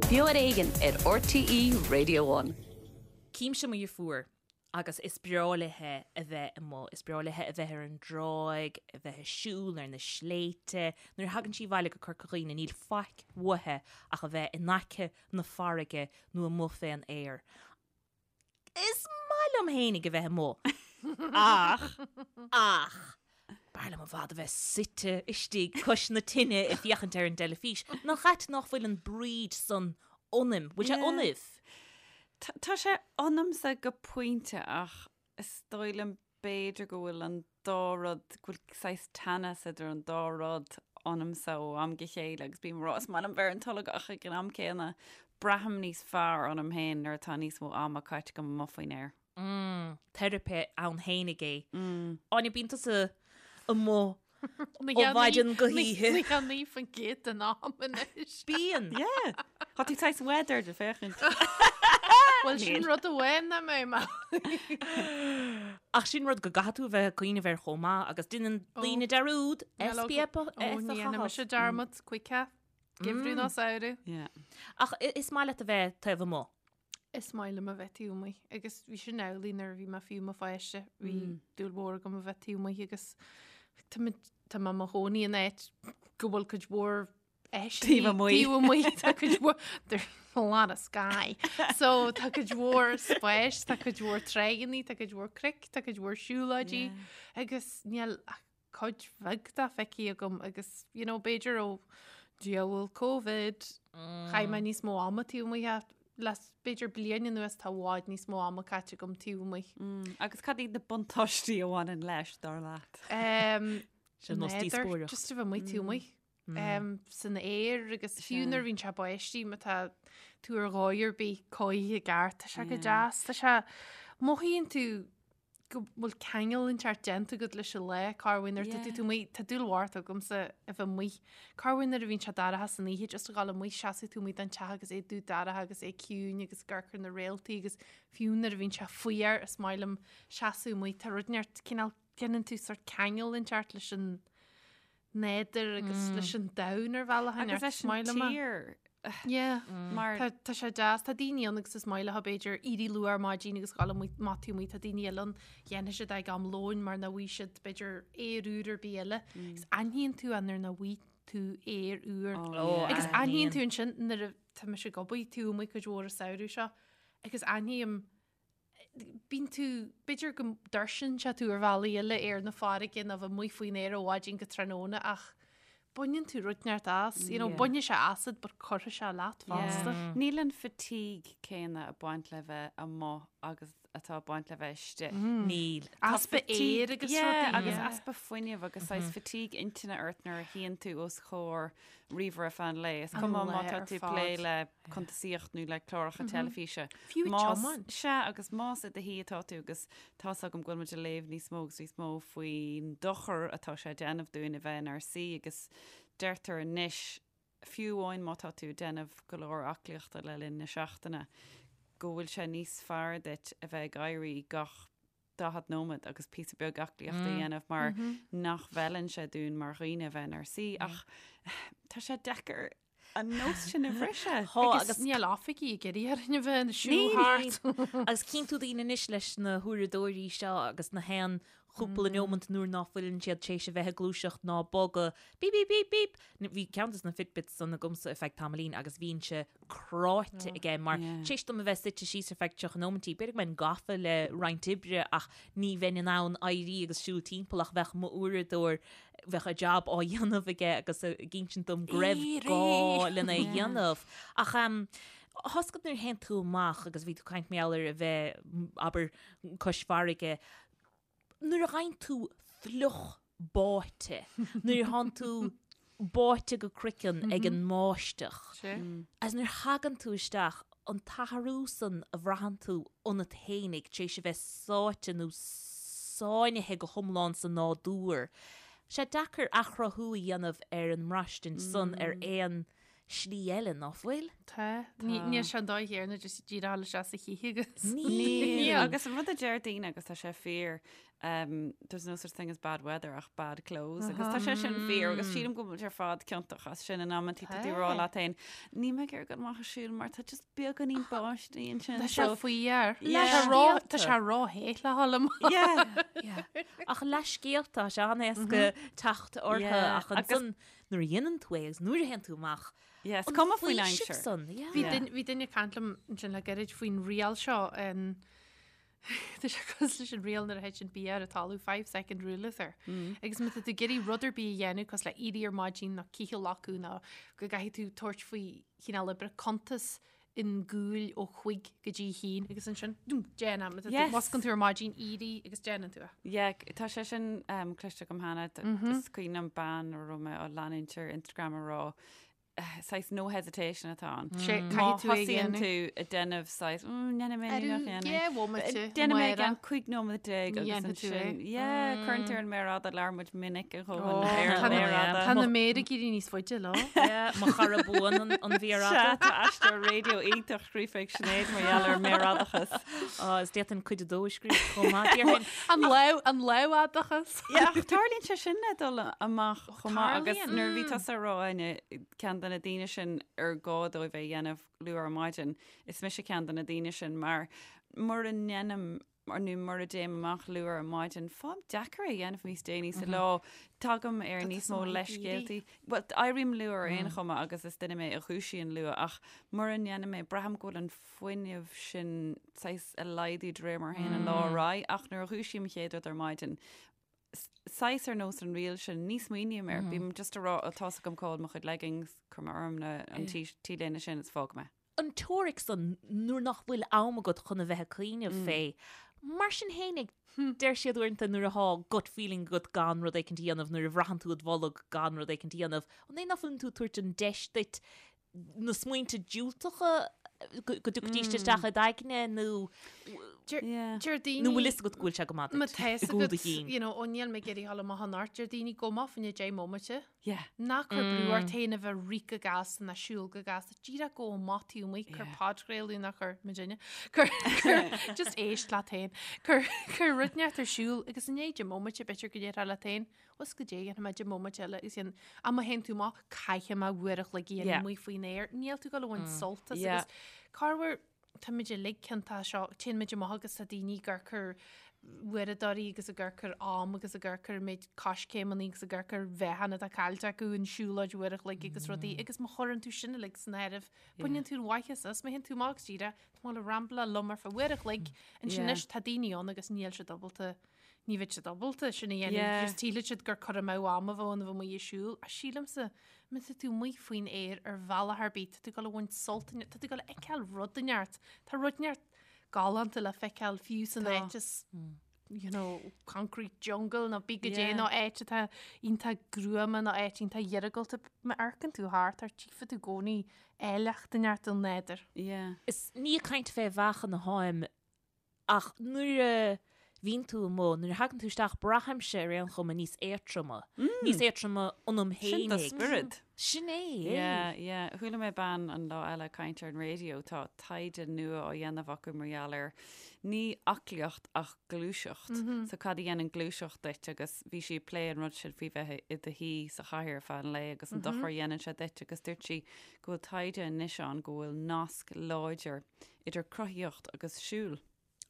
Beo ar Éigean ar RTÉ Radio One. Címse mo dheirfiúr agus is breá léithe a bheith amuigh, is breá léithe a bheith ar an dtráigh, a bheith ag siúl ar na sléibhte. Nuair a thagann sí abhaile go Corca Dhuibhne níl faic uaithe ach a bheith in aice na farraige nó amuigh fén aer. Is maith liom fhéinig a bheith amuigh ach, ach, b'fhearr liom i bhfad a bheith suite istigh cois na tine ag féachaint ar an dteilifís. Nach ait nach bhfuil an bríd san ionaim? Bhfuil sé ionaibh? Tá sé ionamsa go pointe ach is dóigh liom b'fhéidir go bhfuil an dá rud, go bhfuil saghas teannas idir an dá rud ionamsa ó am go chéile agus bím ag rá is maith liom bheith ar an tolg ach ag an am céanna braithim níos fearr ionam féin nuair atá níos mó ama caite agam amuigh faoin aer. Mm, teiripe ann fhéinig é. Áine, bíonn tusa amuigh Ó mhaidin go hoíche. 99% den am anois. Bíonn. Yeah. Tá tú saghas weathered ag féachaint. Bhuel sin rud amháin nach mbeidh mé. Ach sin rud go gcaithfidh tú a bheith ag cuimhneamh air chomh maith agus déanann daoine dearúd SPF a Ó ní dhéanfaidh chaitheamh. mise dearmad choíche. Geimhreadh ná samhradh. Yeah. Ach is maith leat a bheith taobh amuigh. Is maith liom a bheith taobh amuigh agus bhí sin amhlaidh nuair a bhí mé fiú i mo pháiste. Bhí dúil mhór agam a bheith taobh amuigh agus tá mé tá mé i mo chónaí in áit go bhfuil cuid mhór áiseanna Taobh amuigh. Taobh amuigh tá cuid mhór there's a lot of sky. So tá cuid mhór spáis, tá cuid mhór tráigheanna, tá cuid mhór cnoic, tá cuid mhór siúlóidí agus níl ach cuid bheag de feicthe agam agus you know b'fhéidir ó diabhal Covid chaith mé níos mó ama taobh amuigh ach le b'fhéidir bliain anuas tá i bhfad níos mó ama caite agam taobh amuigh. Mm, agus cad iad na buntáistí a bhaineann leis, dar leat? Um, Sin nós n'fheadar, díospóireacht. Just a bheith amuigh taobh amuigh. Um, san aer agus fiú nuair a bhíonn sé báistí má tá tú ar dhóigh ar bith cothaithe i gceart, tá sé go deas, tá sé mothaíonn tú go bhfuil ceangal inteacht déanta agat leis an lá, corruair nuair atá tú amuigh, tá dúil mhór agamsa a bheith amuigh. Corruair nuair a bhíonn sé dorcha san oíche, just a ghabháil amuigh, seasamh tú amuigh den teach agus é dubh dorcha agus é ciúin agus ag amharc ar na réaltaí agus fiú nuair a bhíonn sé fuar, is maith liom seasamh amuigh, tá rud inteacht, cineál, déanann tú sort ceangal inteacht leis an nádúr agus leis an domhan ar bhealach Agus leis an tír. Yeah. Mar Tá tá sé deas, tá daoine ann agus is maith leo b'fhéidir éirí luath ar maidin agus dhul amuigh má tá amuigh, tá daoine eile ann dhéanfaidh siad ag am lóin mar nach bhfaighidh siad b'fhéidir aer úr ar bith eile. Agus aithníonn tú é nuair nach bhfaighidh tú aer úr. Oh, Agus yeah. aithníonn tú ansin nuair a tá mise ag obair taobh amuigh cuid mhór an samhradh seo agus aithním bíonn tú, b'fhéidir go dtuirseann sé tú ar bhealaí eile ar na farraige nó bheith amuigh faoin aer ó mhaidin go tráthnóna ach baineann tú rud inteacht as, you know, Yeah. bainfidh sé asat but cuirfidh sé leat fosta. Níl an fatigue céanna ag baint le bheith amuigh agus atá ag baint le bheith istigh. Níl. Tá Easpa fatigue- aeir agus Yeah, rudaí. agus Yeah. easpa fuinnimh agus saghas fatigue intinne ort nuair a shuíonn tú os comhair ríomhaire feadh an lae. Is cuma má lae tá ar tú ag plé fad. le cuntasaíocht nó le cláracha teilifíse. Fiú ag Más- tiomáint. Sea, agus más i do shuí atá tú agus tá's agam go bhfuil muid ag léamh níos mó agus níos mó faoin dochar atá sé ag déanamh dúinn a bheith inár suí agus deirtear anois, fiú amháin má tá tú ag déanamh go leor aclaíochta le linn na seachtaine, go bhfuil sé níos fearr duit a bheith ag éirí gach 40 nóiméad agus píosa beag aclaíochta a dhéanamh mar nach bhfeileann sé dúinn mar dhaoine a bheith inár suí ach tá sé deacair an nós sin a bhriseadh. Tá Agus agus níl oifigí ag iarraidh orainn a bheith ag siúl thart. Agus cíonn tú daoine anois leis na huaireadóirí seo agus na haon chúpla neomant nuair ná fuileann siad tar éis a bheith ag gluaiseacht ná bogadh, bíp bíp bíp bíp! Bhí ceann de na Fitbits san agamsa ar feadh tamaillín agus bhínnse cráite aige mar tar éis dom a bheith suite síos ar feadh 30 nóimintí, b'fhéidir go mbeinn gafa le roinnt oibre ach ní bheinn in ann éirí agus siúl timpeall ach bheadh m'uaireadóir, bheadh a jab á dhéanamh aige agus ag insint dom go raibh gá lena dhéanamh. Ach tá's agat nuair a théann tú amach agus bhí tú ag caint mar gheall ar a bheith, abair, cois farraige, nuair a gheibheann tú fliuch báite, nuair a thánn tú báite go croiceann ag an mbáisteach, agus nuair a thagann tú isteach, an t-athrú san a bhraitheann tú ionat fhéinig tar éis a bheith sáite nó sáinnithe go hiomlán sa nádúr, sé deacair athchruthú a dhéanamh ar an mbraistint san ar aon. slí eile, ná fuil? Tá. Níl sé an dóigh chéanna just díreach a dhul isteach sa chith agus. Níl. Agus an rud a deir daoine agus tá sé fíor, um, there's no such thing as bad weather ach bad clothes agus tá sé sin fíor agus sílim go bhfuil muid ar fad ciontach as sin in amantaí tá tú ag rá leat féin níl mé ag iarraidh dul amach ag siúl mar tá just beagáinín báistí ansin. Tá sé faoi Yeah. Tá sé róthe le dhul amach. Yeah. Ach leithscéalta, tá sé an-éasca teacht orthu ach ansan nuair a dhéanann tú é agus nuair a théann tú amach, Yeah, is cuma faoin aimsir. San, yeah. Bhí duine- bhí duine ag caint liom ansin le gairid faoin riail seo an Tá sé cosúil leis an riail nuair a thiteann bia ar an talamh, 5 second rule is air. Agus má tá tú ag iarraidh rud ar bith a dhéanamh cosúil le éirí ar maidin nó cith a fholcadh nó go gcaithfidh tú tabhairt faoi chineál oibre cuntas an gcúil ó chuig go dtí haon agus ansin dúm, déan é. Má tá tú- Yes. Moscann tú ar maidin éirí agus déanann tú é. Yeah, tá sé sin um, cloiste agam cheana. Is cuimhin liom bean a raibh mé á leanúint ar Instagram a rá saghas no hesitation atá ann. Sé, Má caithfidh tú é a thosaíonn dhéanamh. tú ag déanamh saghas, mm, ndéanfaidh mé Arú, nach ndéanfaidh. yeah, bhomaite, Déanfaidh mé Máire. gan 15 nóiméad Ní agus dhéanfaidh tú é. ansin, yeah, cuireann tú ar an méar fhada, labhair muid minic a dhóthain Ó, ar tá an na- méar fhada. Tá na méara ag éirí níos faide lá. Yeah, mo chara buan an, an mhéar Sea, fhada. tá aistear raidió iontach scríofa ag Sinéad mar gheall ar an méarfhadachas. Á, is d'fhéadfainn cuid a dó a scríobh chomh maith. Déarfainn, An lámh, an lámhfhadachas. Yeah, ach tarlaíonn sé sin le dul amach chomh maith agus Tarlaíonn. nuair a bhí tusa ag rá Áine, ceann de na daoine sin ar gá dóibh é a dhéanamh luath ar maidin, is mise ceann de na daoine sin mar mura ndéanaim nó mura dtéim amach luath ar maidin, faighim deacair é a dhéanamh níos déanaí sa lá. Tagaim ar níos mó leithscéaltaí. Bhuel, éirím luath ar aon chuma agus is duine mé a dhúisíonn luath ach mura ndéanaim é, braithim go bhfuil an fuinneamh sin saghas ag laghdú de réir mar a théann an lá ar aghaidh ach nuair a dhúisím an chéad rud ar maidin, saghas ar nós an riail sin, ní smaoiním air, bím just ag rá, ó tá's agam cá bhfuil mo chuid leggings, cuir mé orm na, an t-léine sin is fág mé. An teoiric san nuair nach bhfuil am agat chun a bheith ag cuimhneamh fé. Mar sin fhéinig, deir siad uaireanta nuair athá gut feeling agat gan rud éicint a dhéanamh, nuair a bhraitheann tú id bholg gan rud éicint a dhéanamh, an é nach bhfuileann tú ag tabhairt an deis duit na smaointe diúltacha go dtiocfaidís isteach i d'aigne nó Deir daoine nó bhfuil fhios agat go bhfuil sé go maith Má duit tá fhios i gcúl do agat, chinn. you know, ó níl mé ag iarraidh dhul amach anocht, deir daoine gabh amach fá choinne 10 mbomaite. Yeah. Ná cuir brú ort féin a bheith ag rith go gasta ná siúl go gasta. Díreach gabh amach taobh amuigh, cuir podchraoladh ná cuir muidinne. Cuir, cuir, just éist leat féin. Cuir, cuir rud inteacht ar siúl agus i ndiaidh 10 mbomaite b'fhéidir go ndéarfá leat féin, Bhuel goidé dhéanfaidh mé 10 mbomaite eile agus dhéan ach má théann tú amach caithfidh mé uair a chloig a dhéanamh Yeah. amuigh faoin aer. Níl tú ag dul a bhaint sult as Yeah. agus corruair táimid uilig ciontach seo téann muid amach agus tá daoine ag amharc ar uaireadóirí agus ag amharc ar am agus ag amharc ar an méid coiscéimeanna agus ag amharc ar mheáchan atá caillte acu an siúlóid uair a chloig agus rudaí agus má chuireann tú sin uilig san áireamh baineann tú an mhaitheas as má théann tú amach agus díreach tá mé ag rambláil liom ar feadh uair a chloig ansin Yeah. anois tá daoine ann agus níl siad ábalta Ní bheidh siad ábalta sin a dhéanamh. Yeah. Just sílfidh siad gur cur amú ama a bheadh ann a bheith amuigh ag siúl. Ach sílimse, má tá tú amuigh faoin aer ar bhealach ar bith, tá tú ag dul a bhaint sult, tá tú ag dul a fheiceáil rud inteacht. Tá rud inteacht galánta le feiceáil fiú san Tá. áit is, you know, concrete jungle nó bí goidé Yeah. nó áit atá iontach gruama nó áit iontach iargúlta. Má amharcann tú thart ort, tchífidh tú i gcónaí áilleacht inteacht an nádúir. Yeah. Is ní ag caint fé mheáchan atháim Ach nuair a bhíonn tú amuigh, nuair a thagann tú isteach, braithimse ar aon chuma níos éadtroma. Níos éadtroma ionam Sin do fhéinig. spiorad. Sin é, é. Yeah, yeah. Chuala mé bean an lá eile ag caint ar an raidió, tá taighde nua á dhéanamh acu mar gheall ar ní aclaíocht ach gluaiseacht. So cad a dhéanann gluaiseacht duit agus bhí sí ag plé an rud sin faoi bheith i do shuí sa chathaoir ar feadh an lae agus an dochar a dhéanann sé duit agus dúirt sí go bhfuil taighde anois ann go bhfuil nasc láidir idir cruthaíocht agus siúl.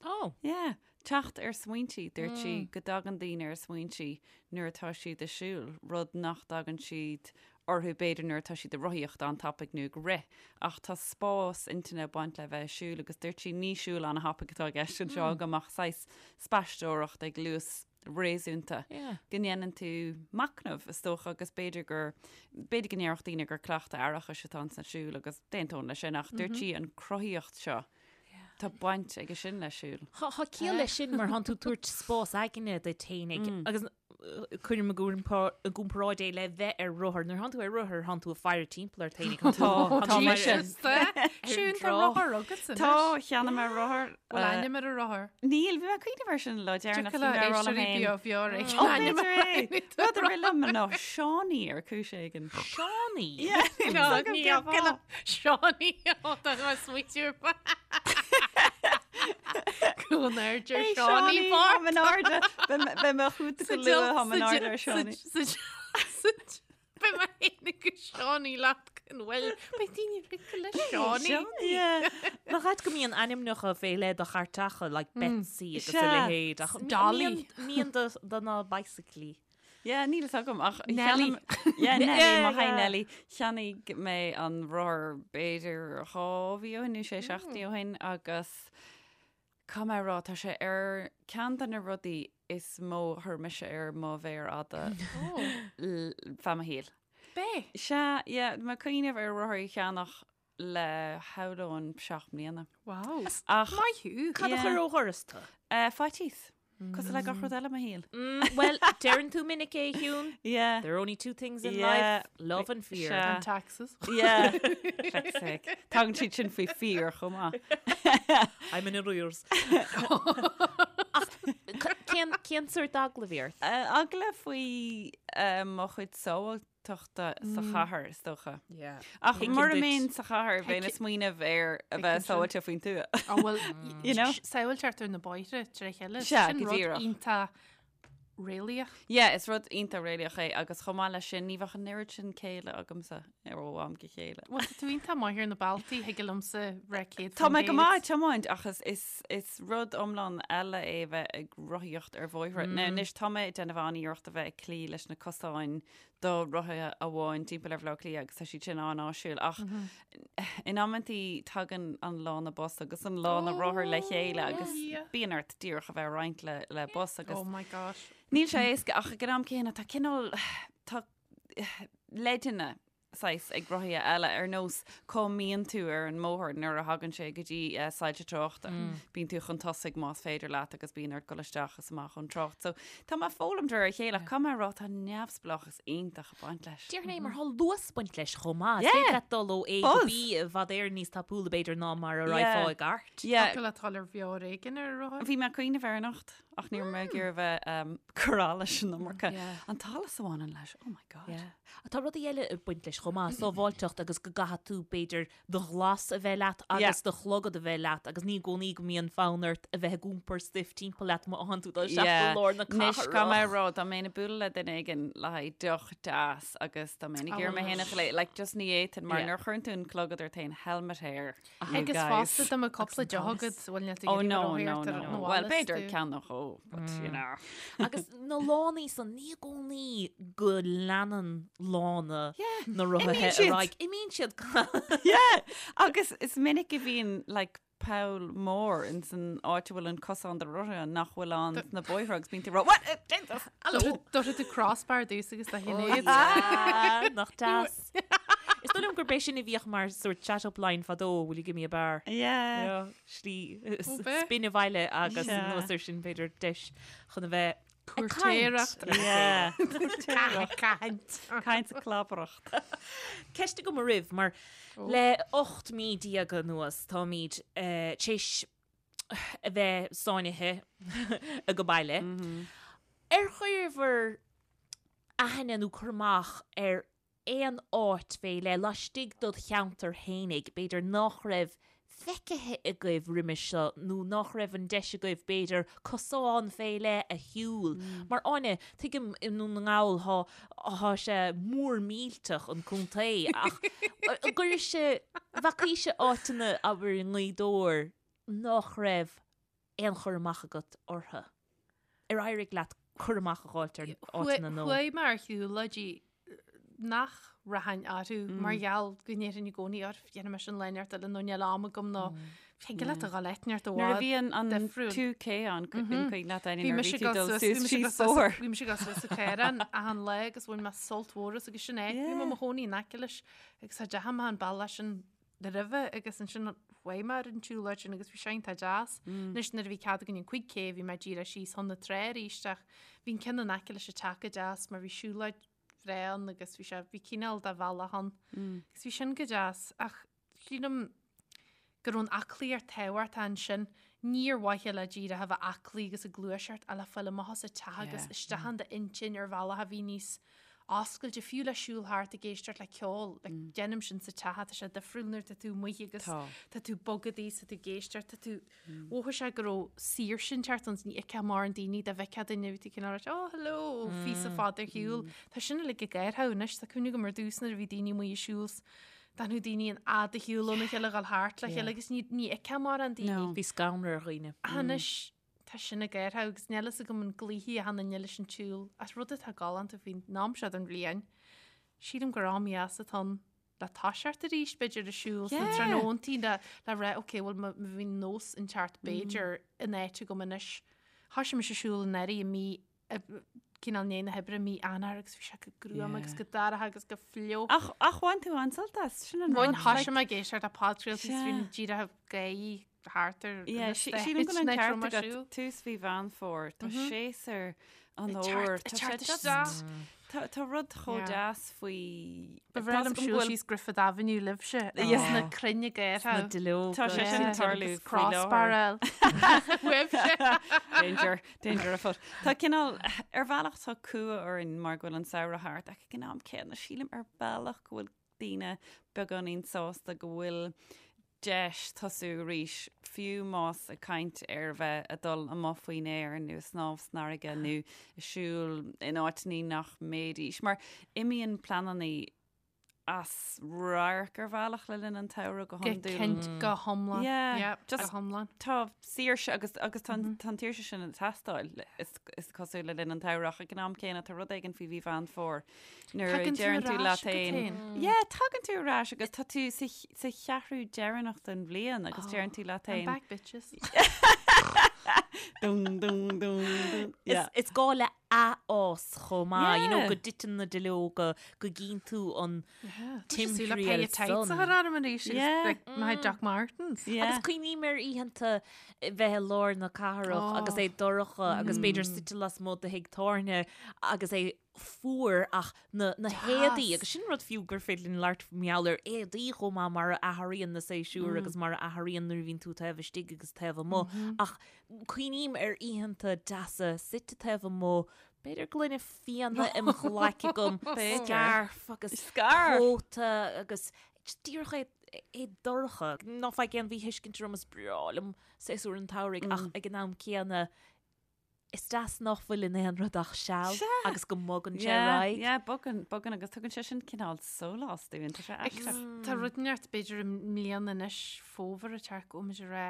Oh. Yeah. Teacht ar smaointí, dúirt sí go dtagann daoine ar smaointí nuair atá siad ag siúl, rud nach dtagann siad orthu b'fhéidir nuair atá siad ag rothaíocht an-tapaidh nó ag rith. Ach tá spás intinne ag baint le bheith ag siúl agus dúirt sí ní siúl an-thapaidh atá i gceist anseo agam ach saghas spaisteoireacht ag luas réasúnta, go ndéanann tú machnamh, is dócha, agus b'fhéidir gur, b'fhéidir go ndéarfadh daoine gur cleachtadh aireachais atá ins an siúl agus d'aontóinn leis sin, ach dúirt sí an cruthaíocht seo, tá baint aige sin le siúl. Tá ciall leis sin mar thánn tú ag tabhairt spás aigne duit fhéinig agus. Cuirim i gcomparáid é le bheith ar rothar. Nuair thánn tú ar rothar, thánn tú ag faire timpeall ort féinig. Tá, tá mise. Siún, tá rothar agat anois. Tá, cheannaigh mé rothar. Bhfuil ainm ar an rothar? Níl, bhí mé ag cuimhneamh air sin an lá deireanach. Tiocfaidh le éisteoirí beo bheo ag Ó, b'fhéidir é. Rud a rith liom ná Seánie ar chúis éigin. Seánie? Yeah, níl a fhios agam cén fáth. Seánie, ó, tá mé smaoitiú ar Go n-airde ar Hey, Seánie Seánie, Park. Táim in airde. Beidh mé chugat go luath, táim in airde ar Seánie. Beidh mé féin agus Seánie leat go bhfuil. Beidh daoine rite le Seánie. Yeah. Nach ait go mbíonn ainmneacha fé leith do chairteacha, like Betsy agus a Sea. leithéid. Ach Dolly. Mbíonn do na bicyclí. Yeah, níl a fhios agam ach Nelly. cheannaigh- Yeah, Nelly, Yeah, maith yeah. Nelly. Cheannaigh mé an rothar b'fhéidir 2 mhí ó shin nó 6 seachtainí ó shin agus caithfidh mé a rá tá sé ar ceann de na rudaí is mó a chuir mise ar mo mhéar fhada l- feadh mo shaoil. Bé. Sea, yeah, mé ag cuimhneamh ar rothar a cheannach le shamhlóinn 7 mbliana. Wow. Ach Maith thú. Cad a Yeah. chuir ó dhoras tú? eh, faitíos. Cosúil le gach rud eile i mo shaol. Bhuel, deireann tú minic é, Shiún. Yeah. There are only two things in Yeah. life, love and fear. Sea. And taxes. Yeah. Feck's sake. Tagann siad sin faoi fear chomh maith. I'm in arrears. Ach cén cén sórt eagla a bhí ort? Eh, Eagla faoi eh, mo chuid sábháilteachta sa chathair, is dócha. Yeah. Ach Tuigim mura duit. mbeinn sa chathair, bheinn ag smaoineamh ar a bheith sin. sábháilte faoin tuath. Á bhuel, You know? Sábháilteacht ar na bóithre tré chéile. Sea, Sin go rud díreach. iontach réalaíoch. Yeah, is rud iontach réalaíoch é agus chomh maith leis sin, ní bheadh an oiread sin céille agamsa ar ó am go chéile. Bhuel, tá tú iontach maith ar na bealtaí, thig liomsa rith 100 Tá mé go maith ag tiomáint ach is, is, is rud iomlán eile é a bheith ag rothaíocht ar bhóithre. Now, anois tá mé ag déanamh an-iarracht a bheith ag cloí leis na cosáin do rothaithe amháin timpeall ar Bhaile Átha Cliath agus tá siad sin an-áisiúil ach in amantaí tagann an lána bus agus an lána rothar le chéile agus bíonn ort díreach a bheith ag roinnt le, le bus agus Oh my gosh. níl sé éasca ach ag an am céanna tá cineál tá leideanna saghas ag rothaithe eile ar nós cá mbíonn tú ar an mbóthar nuair a thagann sé go dtí eh, soilse tráchta. Bíonn tú chun tosaigh más féidir leat agus bíonn ort dul isteach is amach ón trácht. So tá mé ag foghlaim de réir a chéile ach caithfidh mé a rá tá neamhspleáchas iontach ag baint leis. Déarfainn é mar tá luas ag baint leis chomh maith. Yeah. Is féidir leat dul ó A go Buzz. B i bhfad Éireann níos tapúla b'fhéidir ná mar a Yeah. raghfá i gcairt. Yeah. Tá le dul ar bheár éigin ar rothar. Bhí mé ag cuimhneamh air anocht ach ní raibh mé ag iarraidh a bheith um, cur leis an iomarca. Yeah. An t-allas a bhaineann leis, oh my god. Yeah. Tá rudaí eile ag baint leis chomh maith, sábháilteacht agus go gcaithfidh tú b'fhéidir do ghlas a bheith leat agus do chlogad a bheith leat agus ní i gcónaí go mbíonn fonn ort a bheith ag iompar stuif timpeall leat má thánn tú dul isteach go lár na Anois caithfidh mé a cathrach. rá dá mbeinn ag bualadh le duine éigin le haghaidh deoch deas agus dá mbeinn ag iarraidh mé féin a ghléasadh, like just ní fhéadfainn mar Yeah. nuair a chuireann tú an clogad ort féin helmet hair. you Agus guys. fosta dá mbeadh cúpla deoch agat bhfuil níl tú Oh ag no, iarraidh no, rothaíocht ar no. an Well, bhfad b'fhéidir tú. ceann nó dhó, but you know. Agus na lánaí san ní i gcónaí go leanann lána Yeah, na rothaithe imíonn ar siad. aghaidh. Imíonn siad. Yeah, agus is minic a bhíonn like poll mór in san áit a bhfuil an cosán do rothaithe nach bhfuil ann sna bóithre agus bíonn tú ag rá, What? Eh, Jesus! Hello. Dúirt tú crossbar dús agus do chinnéad. Ah, Nach deas. Is dóigh liom gurb é sin a bhíodh mar sort chat-up line fadó, will you give me a bar? Yeah. Yeah, Slí Ó, b'é. spin abhaile agus Yeah. anuas air sin b'fhéidir deis chun a bheith ag Cúirtéireacht. caint. Yeah. Caint. Caint is clabaireacht. Ceist agam oraibh mar le 18 mí anuas táimid eh, tar éis a bheith sáinnithe ag baile. Ar chuireabhair aithne nó cur amach ar aon áit fé leith laistigh dod cheantar fhéinig, b'fhéidir nach raibh feicthe agaibh roimhe seo nó nach raibh an deis agaibh b'fhéidir cosán fé leith a shiúl. Mar Áine, tuigim i nDún na nGall thá thá sé mór millteach an contae ach an gcuiris-se, bhfacaís-se áiteanna abair i nGaoth Dobhair nach raibh aon chur amach agat orthu? Ar éirigh leat cur amach a dh'fháilt ar áiteanna nó? Chuaigh mé ar shiúlóidí nach rachainn orthu mar gheall go ndéarfainn i gcónaí or dhéanfaidh mé sin lá inteacht eile nó níl am agam nó thig leat a dhul áit inteacht i Nuair a bhfad bhí an an difriúil. 2K ann, an cuimhin leat Áine, Bhí nuair a mise bhí tú ag dul dul suas- suas bhí mise ag síos dul suas- bóthar. bhí mise ag dul suas sa Chaorán achan lá agus bhain mé sult mhór as agus sin é. Bhí mé i mo chónaí in aice leis agus cha dteachaidh mé an bealach sin. roimhe agus ansin chuaigh mé ar an tsiúlóid sin agus bhí sé iontach deas. Anois nuair a bhí cead againn an 5K bhí mé díreach síos chun na trá arís ach bhí an ceann in aice leis an teach go deas mar bhí siúlóid bhreá ann agus bhí sé bhí cineál de bhealach ann. Agus bhí sin go deas ach sílim go raibh an aclaíocht tábhachtach ansin, ní ar mhaithe le díreach a bheith aclaí agus ag gluaiseacht ach le fáil amach as an teach agus isteach in d'intinn ar bhealach a bhí níos oscailte, fiú le siúl thart ag éisteacht le ceol, like, déanaim sin sa teach, tá sé difriúil nuair tá tú amuigh agus tá tú bogadaí, tá tú ag éisteacht, tá tú, mhothaigh sé go raibh saoirse inteacht ann, ní fheicfeá mórán daoine, dá bhfeicfeá duine bhí tú cineál rá, oh hello, phíosa fada ar shiúl. Tá sin uilig ag athrú anois, tá cuimhne agam ar dtús nuair a bhí daoine amuigh ag siúl D'fhanadh daoine an fhad a shiúl óna chéile, dhul thart le chéile agus ní ní fheicfeá mórán daoine. No. Bhí scanradh ar dhaoine. Anois tá sin ag athrú agus níl fhios agam an gcloífidh achan duine leis an tsiúl as rud atá galánta faoin am seo den bhliain. Sílim gur am dheas atá ann le toiseacht arís b'fhéidir ag siúl sna tráthnóntaí le le rá ok bhuel má bhí nós inteacht b'fhéidir in áit agam anois. Thoisigh mise ag siúl anuraidh i mí cineál i ndiaidh na hoibre mí Eanáir agus bhí sé go gruama agus go dorcha agus go fliuch. Ach ach bhain tú an-sult as, sin an Bhain rud. thoisigh mé ag éisteacht le podchraoltaí is bhí díreach gaoth thart ar Yeah, na sí- sílim go bhfuil an Stáit ceart raibh mé agat siúl. tús mhí Mheán Fómhair, tá séasúr an Ag fhómhair, teacht- tá ag sé teacht just- isteach. Tá tá rud chomh Yeah. deas faoi Ba bhreá liom siúl síos Griffith Avenue libhse agus na crainn ag Na athrú. duilleoga. Tá sé sin ag tarlú Agus faoi láthair. crossbar eil. Uaibhse. Danger, danger afoot. Tá cineál, ar bhealach tá cumha orainn mar go bhfuil an samhradh thart ach ag an am céanna sílim ar bhealach go bhfuil daoine beagáinín sásta go bhfuil deis tosú arís, fiú más ag caint ar bheith ag dul amuigh faoin aer nó ag snámh san fharraige nó ag siúl in áiteanna nach mbeidís, mar imíonn pleananna as radharc ar bhealach le linn an tsamhraidh go Go hiondúil. cinnte, go hiomlán. Yeah, Yeah, just- go hiomlán. Tá saoirse agus agus tá an tá an tsaoirse sin ag teastáil is is cosúil le linn an tsamhraidh ach ag an am céanna tá rud éigin faoi mhí Mheán Fómhair Nuair a Tagann tú deireann tú ar leat ais go féin. féin. Yeah, tagann tú ar ais agus tá tú sa ch- sa cheathrú deireanach den bhliain agus deireann tú leat I'm féin. back bitches. Dún, dún, dún, dún. Is, Yeah. is gá le athfhás chomh maith, you know, Yeah. go dtiteann na duilleoga, go gcíonn tú an Timthriall timthriall tights san. a chur orm arís agus Yeah. like my Doc Martens. Yeah. Agus cuimhním ar oícheanta bheith i lár na cathrach agus é dorcha agus b'fhéidir suite lasmuigh de thigh tábhairne agus é fuar ach na na héadaí agus sin rud fiú gur féidir linn labhairt mar gheall ar éadaí chomh maith mar a athraíonn na séasúir agus mar a athraíonn nuair a bhíonn tú taobh istigh agus taobh amuigh ach cuimhním ar oícheanta deasa suite taobh amuigh b'fhéidir gloine fíona im ghlaic agam scairf agus cóta agus just díreach é é dorcha. Ná faigh aon mhíthuiscint orm is breá liom séasúr an tsamhraidh ach ag an am céanna Is deas nach bhfuil in aon rud ach seal agus go mbogann sé ar aghaidh. Yeah, bogann, bogann agus tugann sé sin cineál sólás dúinn, tá sé aisteach. Tá rud inteacht b'fhéidir i mbliana anois fómhar ag teacht go bhfuil muid ag rá,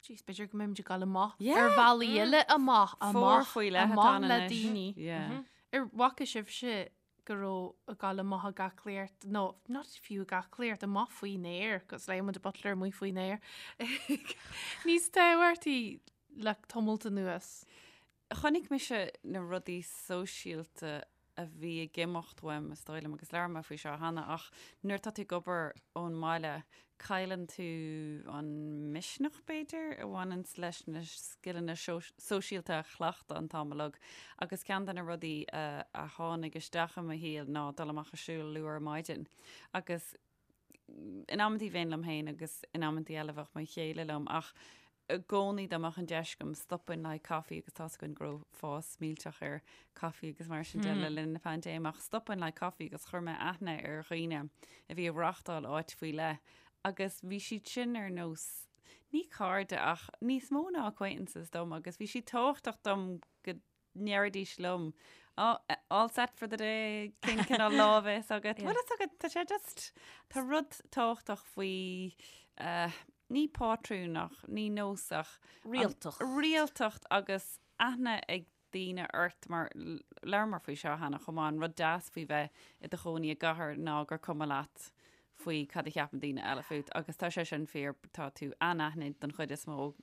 jeez, b'fhéidir go mbeimid ag dul amach ar bhealaí eile amach, amach, amach le daoine. Yeah. Ar bhfaca sibhse go raibh ag dul amach ag aclaíocht, nó not fiú ag aclaíocht, amach faoin aer, cos léigh muid Butler amuigh faoin aer, níos tábhachtaí le tamalt anuas. Chonaic mise na rudaí sóisialta a bhí ag imeacht uaim, is dóigh liom, agus labhair mé faoi seo cheana, ach nuair atá tú ag obair ón mbaile, cailleann tú an misneach, b'fhéidir, a bhaineanns leis na scileanna sóisialta a chleachtadh an t-am uilig. Agus ceann de na rudaí a tháinig isteach i mo shaol ná dul amach ag siúl luath ar maidin. Agus in amantaí bheinn liom féin agus in amantaí eile bheadh mo chéile liom ach i gcónaí dá mbeadh an deis agam stopainn le haghaidh caife agus tá's againn go raibh fás millteach ar caife agus mar sin de le linn na paindéime ach stopainn le haghaidh caife agus chuir mé aithne ar dhaoine a bhí ag reáchtáil áit faoi leith agus bhí siad sin ar nós ní cairde ach níos mó ná acquaintances dom agus bhí siad tábhachtach dom go ndéarfaidís liom, oh, all set for the day, cén cineál lá a bheas agat? Bhfuil fhios agat, tá sé just, tá rud tábhachtach faoi, eh, ní pátrún ach ní nós ach Rialtacht. Rialtacht agus aithne ag daoine ort mar labhramar faoi seo cheana chomh maith, an rud deas faoi bheith i do chónaí i gcathair ná gur cuma leat faoi cad a cheapann daoine eile fút agus tá sé sin fíor, tá tú anaithnid don chuid is mó.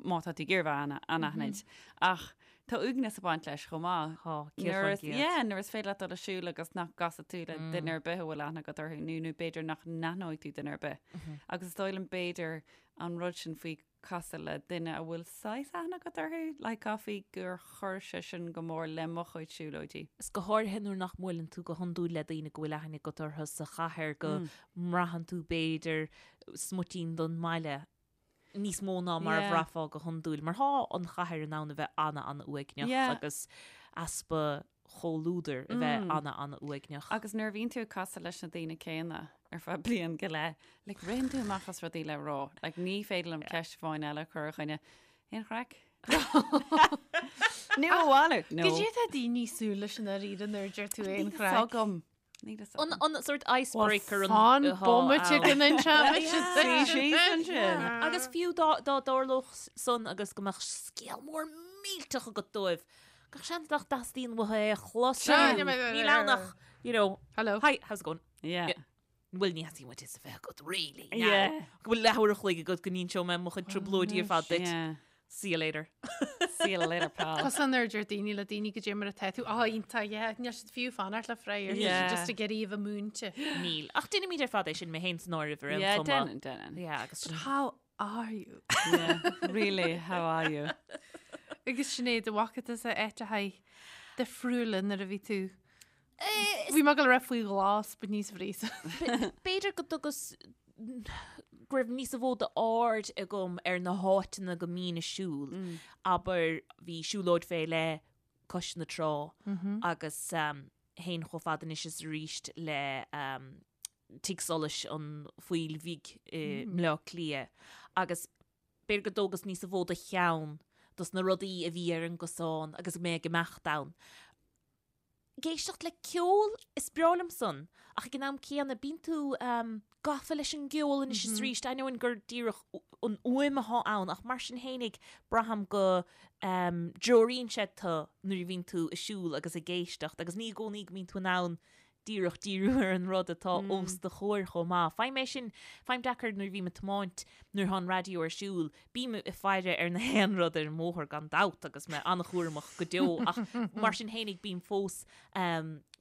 má tá tú ag iarraidh bheith anaithnid. Ach tá uaigneas ag baint leis chomh maith. Tá, 100%. Yeah, nuair is féidir leat dul ag siúl agus nach gcasfaidh tú le duine ar bith a bhfuil aithne agat orthu nó nó b'fhéidir nach n-aithneoidh tú duine ar bith. Agus is dóigh liom b'fhéidir an rud sin faoi casadh le duine a bhfuil saghas aithne agat orthu, like caithfidh gur chuir sé sin go mór le mo chuid siúlóidí. Is go háirithe nuair nach mbuaileann tú go hiondúil le daoine go bhfuil aithne agat orthu sa chathair go mbraitheann tú b'fhéidir smuitín don mbaile níos mó ná mar a bhraithfeá go hiondúil, mar tá an chathair in ann a bheith ana-ana-uaigneach agus easpa chomhluadair a bheith ana-ana-uaigneach. Agus nuair a bhíonn tú ag casadh leis na daoine céanna ar feadh bliain go leith, like, ritheann tú amach as rudaí le rá. Like, ní féidir liom ceist amháin eile a chur ar dhuine. Aon chraic? Nó a mhalairt? No. Goidé tá daoine ag súil leis i ndáiríre nuair a deir tú aon Níl chraic. fhios agam. Níl fhios An, agam. an sort icebreaker an Fan atá bomaite ann. go n-inseoidh Suigh síos ansin. Agus fiú dá, dá dtarlódh san agus go mbeadh scéal mór millteach agat dóibh, gach seans nach dteastaíonn uathu é a chlos. Níl ann ach, you know, Hello. Hi, how's it going? Yeah. Bhuel, ní theastaíonn uait fhios a bheith agat, really. now. Yeah. Go bhfuil leathuair a chloig agat go n-inseoidh mé mo chuid trioblóidí ar fad duit. Yeah. See you later. See you later, pal. Cosúil nuair a deir daoine le daoine goidé mar atá tú, á iontach, yeah, níl siad fiú fanacht le freagra, níl Yeah. siad just ag iarraidh a bheith múinte. Níl. Ach déanaimid ar fad é sin mé féin san áireamh ar aon Yeah, chuma. déanann, déanann. Yeah, agus But how are you? Yeah, really, how are you? Agus Sinéad, an bhfaca tusa áiteachaí difriúla nuair a bhí tú. Bhí mé ag goil a rá faoi ghlas, but níos bhrí. B'fhéidir go dtugas go raibh níos mó d'aird agam ar na háiteanna go mbínn ag siúl. Abair, bhí siúlóid fé leith cois na trá agus théinn chomh fada anois is arís le Tigh Solais an Phoill Bhig i mBleá Cliath agus b'fhéidir go dtógas níos mó de cheann dos na rudaí a bhí ar an gcosán agus mé ag imeacht ann. Ag éisteacht le ceol, is breá liom san, ach ag an am céanna bíonn tú gafa leis an gceol anois is arís, ainneoin gur díreach an fhuaim atá ann ach mar sin fhéinig braithim go dtreoraíonn sé tú nuair a bhíonn tú ag siúl agus ag éisteacht agus ní i gcónaí go mbíonn tú in ann díreach díriú ar an rud atá os do chomhair chomh maith. Faighim é sin, faighim deacair nuair a bhím ag tiomáint, nuair atá an raidió ar siúl, bím ag faire ar na haon rud ar an mbóthar gan dabht agus mé an-chúramach go deo ach mar sin fhéinig bím fós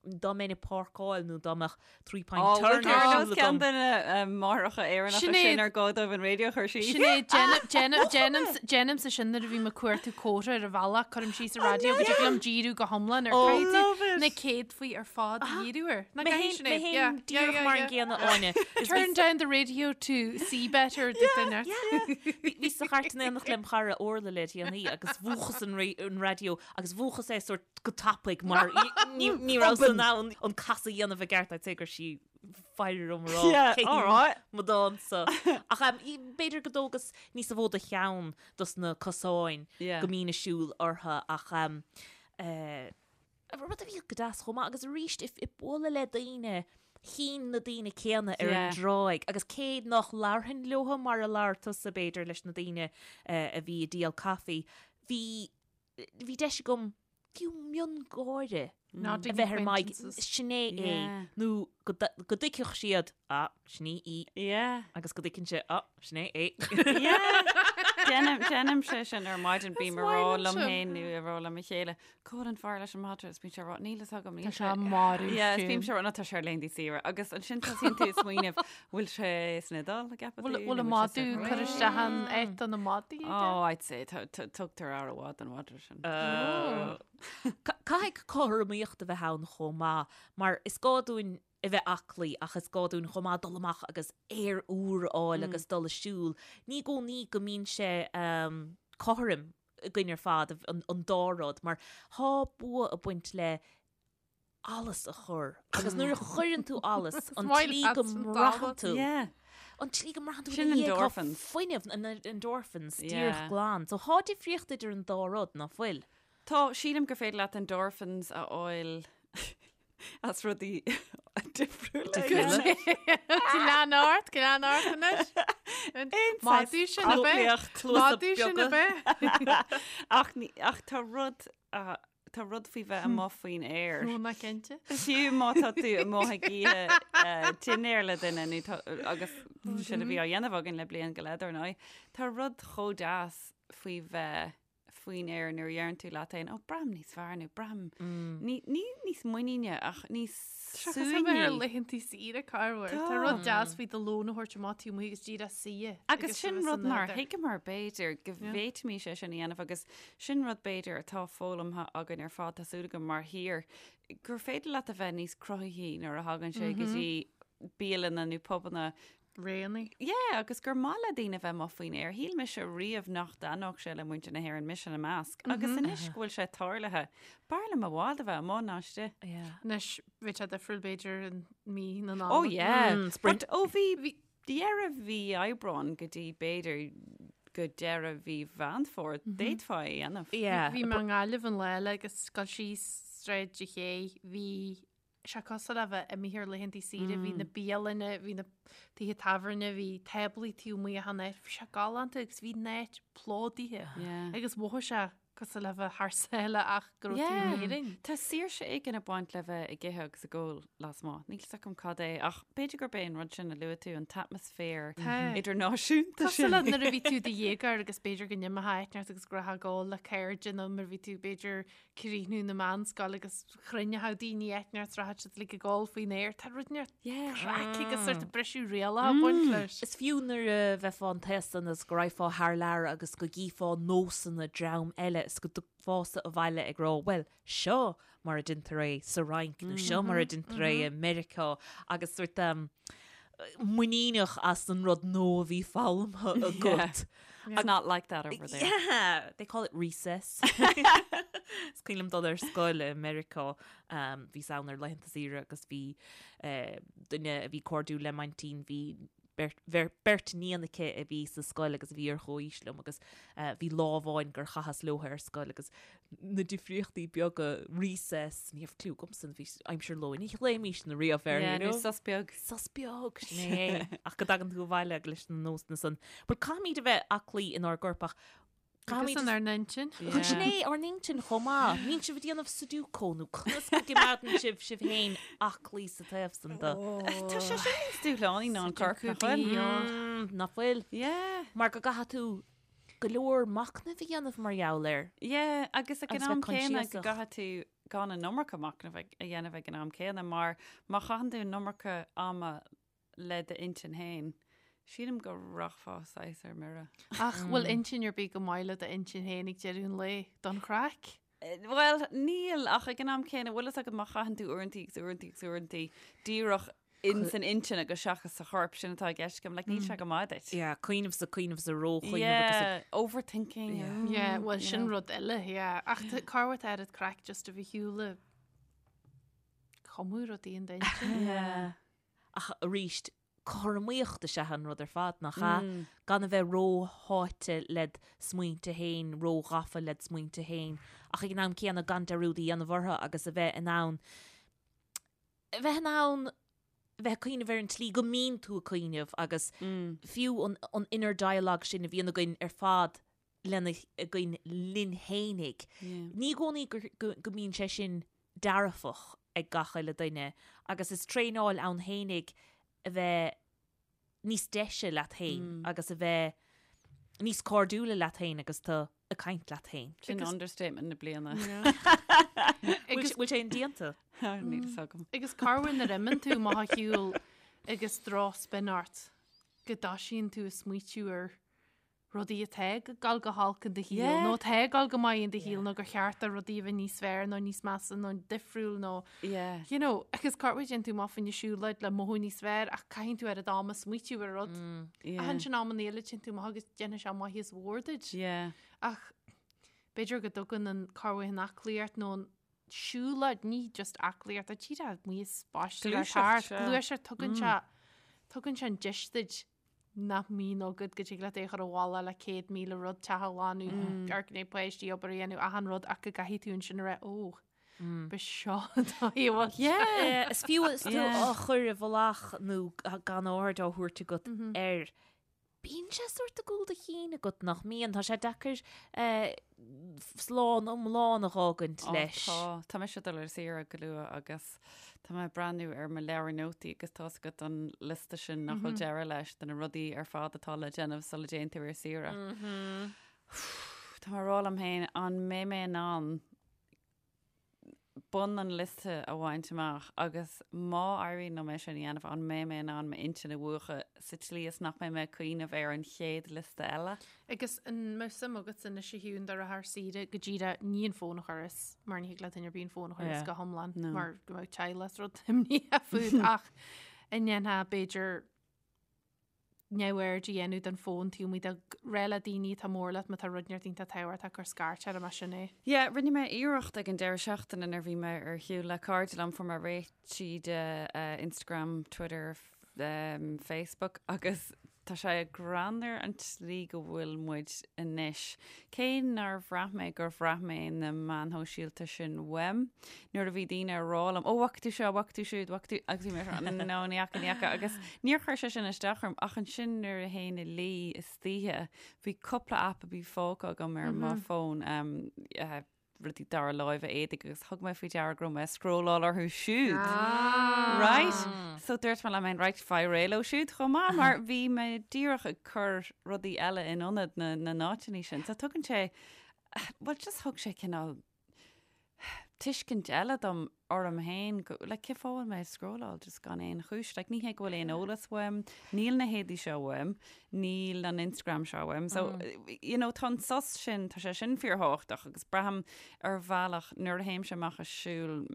dá mbeinn ag páirceáil nó dá mbeadh three point Ó, turn bhfuil ar tú ar siúl nós ceann agam. de na máithreacha Éireannacha Sinéad. sin ar gá dóibh an raidió a chur síos. Sinéad, déanaim- déanaim- déanaimse sin nuair a bhím ag cuartú comhartha ar an bhealach, cuirim síos an raidió go dtig liom díriú go hiomlán ar Oh, caithfidh tú love it. na céadfaí ar fad a dhíriú air. Nach Mé gcaithfidh féin- mé Sinéad? féin Yeah, díreach yeah, mar an yeah, gcéanna, yeah. Áine. Is Turn down the radio to see better, duine. Bhí bhí sa chairt in éineacht lem chara Orla le déanaí agus mhúchas an ra- an raidió agus mhúchas é sort go tapaidh mar ní ní raibh in ann an casadh a dhéanamh i gceart I'd say go raibh sí faire orm a rá Yeah, cé all right. mo dánsa. Ach um, i- b'fhéidir go dtógas níos mó de cheann dos na cosáin Yeah. go mbínn ag siúl orthu ach um, eh, rud a bhí go deas chomh maith agus arís ag ag bualadh le daoine chinn na daoine céanna ar an Yeah. dtráigh agus cé nach labharfainn leo mar a labhair tusa b'fhéidir leis na daoine eh, a bhí ag díol caife, bhí bhí deis agam fiú miongháire Not a bheith ar m'aghaidh, acquaintances. sin é é, Yeah. nó go d- go dtuigfeadh siad, ah, sin í í, Yeah. agus go dtuigeann sé, ah, sin é é. Yeah. Déanaim déanaim sé sin ar maidin bím Is ag rá maith liom liom sin. féin nó ag rá le mo chéile, Cá bhfuil an fear leis an madra is bíonn sé ag rá níl fhios agam níl Tá sé marbh Yeah, is bím fiú. sé ag rá, "No, tá sé ar laethanta saoire agus ansin tosaíonn tú ag smaoineamh bhfuil sé san Iodáil an gceapann Bhfuil tú, bhfuil nó an bhfuil sé sa madadh Bhréid? cur isteach an áit do na madaí aige? Oh, I'd say tá- tá- tugtar aire mhaith don mhadra sin. Ca- Caithfidh cothromaíocht a bheith ann chomh maith, mar is gá dúinn a bheith aclaí ach is gá dúinn chomh maith dul amach agus aer úr a fháil agus dul ag siúl. Ní i gcónaí go mbíonn sé um, cothrom againn ar fad, an, an dá rud, mar tá bua ag baint le allas a chur. Agus nuair a chuireann tú allas, an maith tslí leat go an mbraitheann t-allas. tú. Yeah. An tslí go mbraitheann tú Sin ina dhiaidh, tá endorphins. fuinneamh, an endorphins, Yeah. díreach glan. So tá difríocht idir an dá rud, ná fuil? Tá, sílim gur féidir leat endorphins a fháil as rudaí difriúla. Difriúla. Lean ort, lean ort anois. Madadh sin a bheith. Cluasa Madadh sin a beaga. bheith. Ach ní- ach tá rud ah, tá rud faoi bheith amuigh faoin aer. Nó ná cinnte. Fiú má tá tú amuigh ag ithe eh, dinnéar le duine nó tá- agus sin a bhí á dhéanamh againn le bliain go leith dar ndóigh, tá rud chomh deas. faoi bheith faoin aer nuair a dheireann tú leat féin, ó, braithim níos fearr nó braithim ní, ní níos muiníne ach níos Seachas a bheith ar suaimhní. laethantaí saoire corruair. Tá rud deas faoi do lón a thabhairt amach taobh amuigh agus díreach suí. Agus sin rud nár thuigeamar b'fhéidir go bhféadfaimis é sin a dhéanamh agus sin rud b'fhéidir atá foghlamtha againn ar fad, tá súil agam mar thír, gur féidir leat a bheith níos cruthaithí nuair a thagann sé go dtí bialanna nó pubanna Réanaí. Yeah, agus gur maith le daoine bheith amuigh faoin aer. Shíl mise riamh nach dtaitneodh sé le muintir na hÉireann, mise ina measc. Agus anois go bhfuil sé tarlaithe, b'fhearr liom i bhfad a bheith amuigh ná istigh. Yeah. Anois, bheadh sé difriúil b'fhéidir in mí na Oh Nollag. yeah. Mm, sprint. But ó bhí bhí deireadh mhí Aibreáin go dtí b'fhéidir go deireadh mhí Mheán Fómhair, d'fhéadfá é a dhéanamh. Yeah. Bhí mé i nGaillimh an lá eile agus gabháil síos Sráid an Ché, bhí sé cosúil le bheith imithe ar laethantaí saoire, bhí na bialanna, bhí na tithe tábhairne, bhí táblaí taobh amuigh achan áit, bhí sé galánta agus bhí an áit plódaithe agus mhothaigh sé cosúil le bheith thar sáile ach go raibh tú in Éirinn. Tá saoirse éigin ag baint le bheith ag ithe agus ag ól lasmuigh. Níl 's agam cad é ach b'fhéidir gurb é an rud sin a luaigh tú, an t-atmaisféar idirnáisiúnta Cosúil sin. le nuair a bhí tú i do dhéagóir agus b'fhéidir go n-imeofá áit inteacht agus go raibh ag ól le cairde nó nuair a bhí tú b'fhéidir críochnú na meánscoile agus chruinneodh daoine áit inteacht rachadh siad like ag ól faoin aer. Tá rud inteacht craic agus sort of briseadh rialacha ag baint leis. Is fiú nuair a bheifeá an t-aos san agus go raghfá thar lear agus go gcífeá nósanna dream eile is go dtiocfása abhaile ag rá bhuel seo mar a deintear é sa Fhrainc nó seo mar a deintear é i Meiriceá agus sort muiníneach as an rud nua a bhí foghlamtha agat. It's not like that over there. Yeah, they call it recess. Is cuimhin liom dul ar scoil i Meiriceá, um, bhíos ann ar laethanta saoire agus bhí eh, duine a bhí cairdiúil le m'aintín, bhí beirt, bheir, beirt níon aici a bhí sa scoil agus a bhí ar chomhaois liom agus eh, bhí lá amháin gur chaitheas leo ar scoil agus na difríochtaí beaga recess, ní raibh cliú agamsa, bhí aimsir lóin, ní ghlaoimís na riamh air, Yeah, you know? nó sos beag. Sos beag, sin é. Ach go dtagann tú abhaile leis na nósanna san. But caithfimid a bheith aclaí inár gcorp ach Agus caithfimid inár n-intinn. Yeah. Sin é ár n-intinn chomh maith. Mbíonn sibh ag déanamh Sudoku nó conas go gcoimeádann sibh sibh féin aclaí sa taobh san de. Tá sé sin níos dúshlánaí ná an corp, nach bhfuil? Mm, nach bhfuil? Yeah. Mar go gcaithfidh tú go leor machnaimh a dhéanamh mar gheall air. Yeah, agus ag an Agus am bheith céanna go coinsiasach. gcaithfidh tú gan an iomarca machnaimh a dhéanamh ag an am céanna mar má chaitheann tú an iomarca ama le d'intinn féin, sílim go rachfá saghas ar mire. Ach bhfuil intinn ar bith go maith le d'intinn féin ag deireadh an lae don chraic? Bhuel, níl, ach ag an am céanna, bhfuil fhios agat má chaitheann tú uaireantaí agus uaireantaí agus uaireantaí díreach in san intinn agus seachas sa chorp, sin atá i gceist agam, like, níl sé go maith duit. Yeah, cuimhneamh sa cuimhneamh sa róchuimhneamh agus Yeah, overthinking. Yeah. mm, Yeah, bhuel you sin know. rud eile, yeah. Ach cá bhfuair tú oiread craic just a bheith ar shiúl ag cumadh rudaí in d'intinn. Yeah. Ach arís, cothromaíocht is ea an rud ar fad, nach ea? Gan a bheith rósháite led smaointe féin, róghafa led smaointe féin, ach ag an am céanna gan dearúd a dhéanamh orthu agus a bheith in ann a bheith in ann bheith ag cuimhneamh ar an tslí go mbíonn tú ag cuimhneamh agus fiú an, an inner dialogue sin a bhíonn againn ar fad lena, againn linn fhéinig. Ní i gcónaí go, go, go mbíonn sé sin dearfach ag gach uile duine agus is traenáil ann fhéinig a bheith níos deise leat féin agus a bheith níos cairdiúla leat féin agus tú ag caint leat féin. Sin understatement na bliana. Bhfuil bhfuil sé indéanta? Níl fhios agam. Agus corruair nuair a imíonn tú amach ar shiúl agus drochspin ort go dtoisíonn tú ag smaoitiú ar rudaí atá ag dul go holc in do shaol Yeah. nó atá ag dul go maith in do shaol nó gur cheart do rudaí a bheith níos fearr nó níos measa nó difriúil nó Yeah. you know, agus corruair téann tú amach fá choinne siúlóid le mothú níos fearr ach caitheann tú oiread ama smaoitiú ar rud. Yeah. Ach ansin amanna eile téann tú amach agus déanfaidh sé maitheas mhór duit. Yeah. Ach b'fhéidir go dtugann an corruair an aclaíocht nó an siúlóid, ní just aclaíocht, ach díreach amuigh is spáiste le Gluaiseacht, thart, sea. gluaiseacht, tugann sé tugann sé an deis duit nach mbíonn agat go dtig leat é a chur i bhfolach le 100,000 rud, teach a ghlanadh, amharc i ndiaidh páistí, obair a dhéanamh, achan rud ach go gcaithfidh tú ansin a rá, ó, ba seo an dóigh a bhfuil sé. Yeah. Is fiú is tú Yeah. á chur i bhfolach nó gan aird á thabhairt agat air. Bíonn sé sórt i gcúl do chinn agat nach mbíonn. Tá sé deacair slán iomlán a dh'fhágaint Ó, leis. Tá, tá mise ag dul ar saoire go luath agus tá mé ag breathnú ar mo leabhar nótaí agus tá's agat an liosta sin nach bhfuil deireadh leis de na rudaí ar fad atá le déanamh sula dtéann tú ar saoire. Tá mé ag rá liom féin, an mbeidh mé in ann bun an liosta a bhaint amach agus má éiríonn liom é sin a dhéanamh, an mbeidh mé in ann m'intinn a mhúchadh sa tslí is nach mbeidh mé ag cuimhneamh ar an chéad liosta eile? Agus an mbeadh suim agat anois a Shiún dul ar saoire go díreach ní an fón a chur as mar ní thig le duine ar bith an fón a chur as go hiomlán mar go mbeadh teaghlach is rud imníoch fút ach an ndéanfá b'fhéidir neamhaird a dhéanamh den fón taobh amuigh de rá le daoine atá mór leat má tá rud inteacht iontach tábhachtach gur scairt orm as sin é. Yeah, rinne mé iarracht ag an deireadh seachtaine nuair a bhí mé ar shiúl le cairde liom, fuair mé réitithe de Instagram, Twitter, Facebook agus tá sé greannmhar an tslí go bhfuil muid anois. Cé nár bhraith mé gur bhraith mé na meáin shóisialta sin uaim, nuair a bhí daoine ag rá liom, 'Ó, bhfaca tú seo, bhfaca tú siúd, bhfaca tú', agus bhí mé ag rá, 'No, ní fhaca, ní fhaca', agus níor chuir sé sin isteach orm, ach ansin nuair a théinn a luí istoíche, bhí cúpla aip a bhí fágtha agam ar mo fón, rudaí dara láimhe éadaigh agus thug mé faoi deara go raibh mé ag scrolláil orthu siúd. Right? So dúirt mé liom féin, right, faigh réidh leo siúd chomh maith mar bhí mé díreach ag cur rudaí eile in ionad na na n-áiteanna sin. So tugann sé, well just thug sé cineál tuiscint eile dom orm féin, go, like, cén fáth a bhfuil mé ag scrolláil just gan aon chúis, like, ní hé go bhfuil aon eolas uaim, níl na héadaí seo uaim, níl an Instagram seo uaim, so, you know, tá an sos sin, tá sé sin fíorthábhachtach agus braithim ar bhealach nuair a théimse amach ag siúl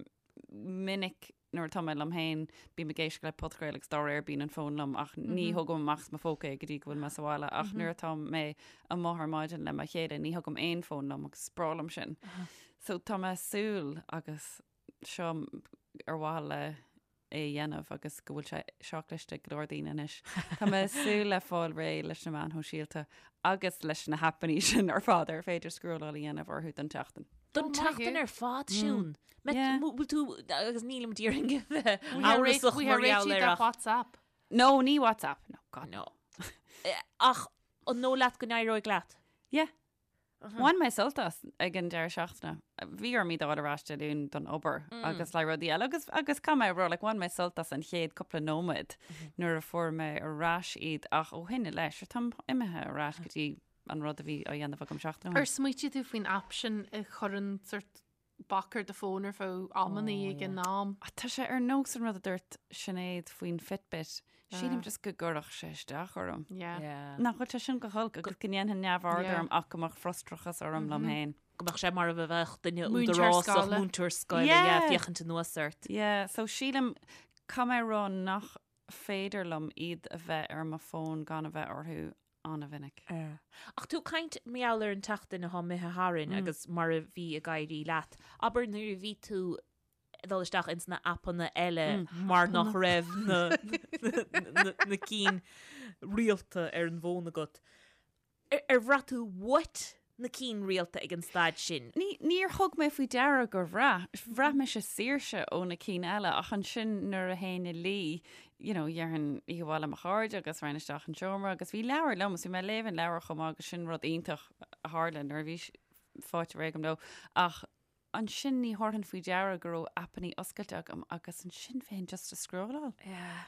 minic nuair atá mé liom féin, bím ag éisteacht le podchraoladh agus dá réir bíonn an fón liom ach ní thógaim amach as mo phóca é go dtí go bhfuil mé sa bhaile ach nuair atá mé amuigh ar maidin le mo chéile ní thugaim aon fón liom agus is breá liom sin. So tá mé ag súil agus seo ar mhaithe le é a dhéanamh agus go bhfuil sé seo cliste ag go leor daoine anois. Tá mé ag súil le fáil réidh leis na meáin shóisialta agus leis na haipeanna sin ar fad ar féidir scrolláil a dhéanamh orthu don tseachtain. Don tseachtain ar fad, Siún. Bhfuil tú, agus nílim d'iarraidh a bheith amhrasach mar gheall air ach. WhatsApp. No, ní WhatsApp. No, God no. Ach an dóigh leat go n-éireoidh leat? Yeah. Bhain mé sult as ag an deireadh seachtaine. Bhí orm iad a fháil ar ais Dé Luain don obair agus le rudaí eile agus agus caithfidh mé a rá like, bhain mé sult as an chéad cúpla nóiméad nuair a fuair mé ar ais iad ach ó shin i leith, sure, táim imithe ar ais go dtí an rud a bhí á dhéanamh agam seachtain ó shin. Ar smaoitigh tú faoin aip sin a chuireann sort bac ar do fón ar feadh amannaí ag an am. Tá sé ar nós an rud a dúirt Sinéad faoin Fitbit. Sílim just go gcuirfeadh sé isteach orm. Nach bhfuil sé sin go holc agus go ndéanfainn neamhaird orm ach go mbeadh frustrachas orm liom féin. Go mbeadh sé mar a bheadh duine údarásach, múinteoir scoile, yeah, féachaint anuas ort. Yeah, so sílim, caithfidh mé a rá nach féidir liom iad a bheith ar mo fón gan a bheith orthu an-mhinic. Ach tú ag caint mar gheall ar an tseachtain atá imithe tharainn agus mar a bhí ag éirí leat, abair nuair a bhí tú ag dul isteach ins na aipeanna eile mar nach raibh na na cinn rialta ar an bhfón agat, ar bhraith tú uait na cinn rialta ag an staid sin? Ní, níor thug mé faoi deara gur bhraith. Bhraith mise saoirse ó na cinn eile ach ansin nuair a théinn a luí, you know, dhéarfainn oíche mhaith le mo chairde agus raghainn isteach an seomra agus bhí leabhar liom agus bhí mé ag léamh an leabhar chomh maith agus sin rud iontach a tharla nuair a bhí faighte réidh agam leo. Ach ansin ní thabharfainn faoi deara go raibh aipeanna oscailte agam agus ansin bheinn just ag scrolláil. Yeah.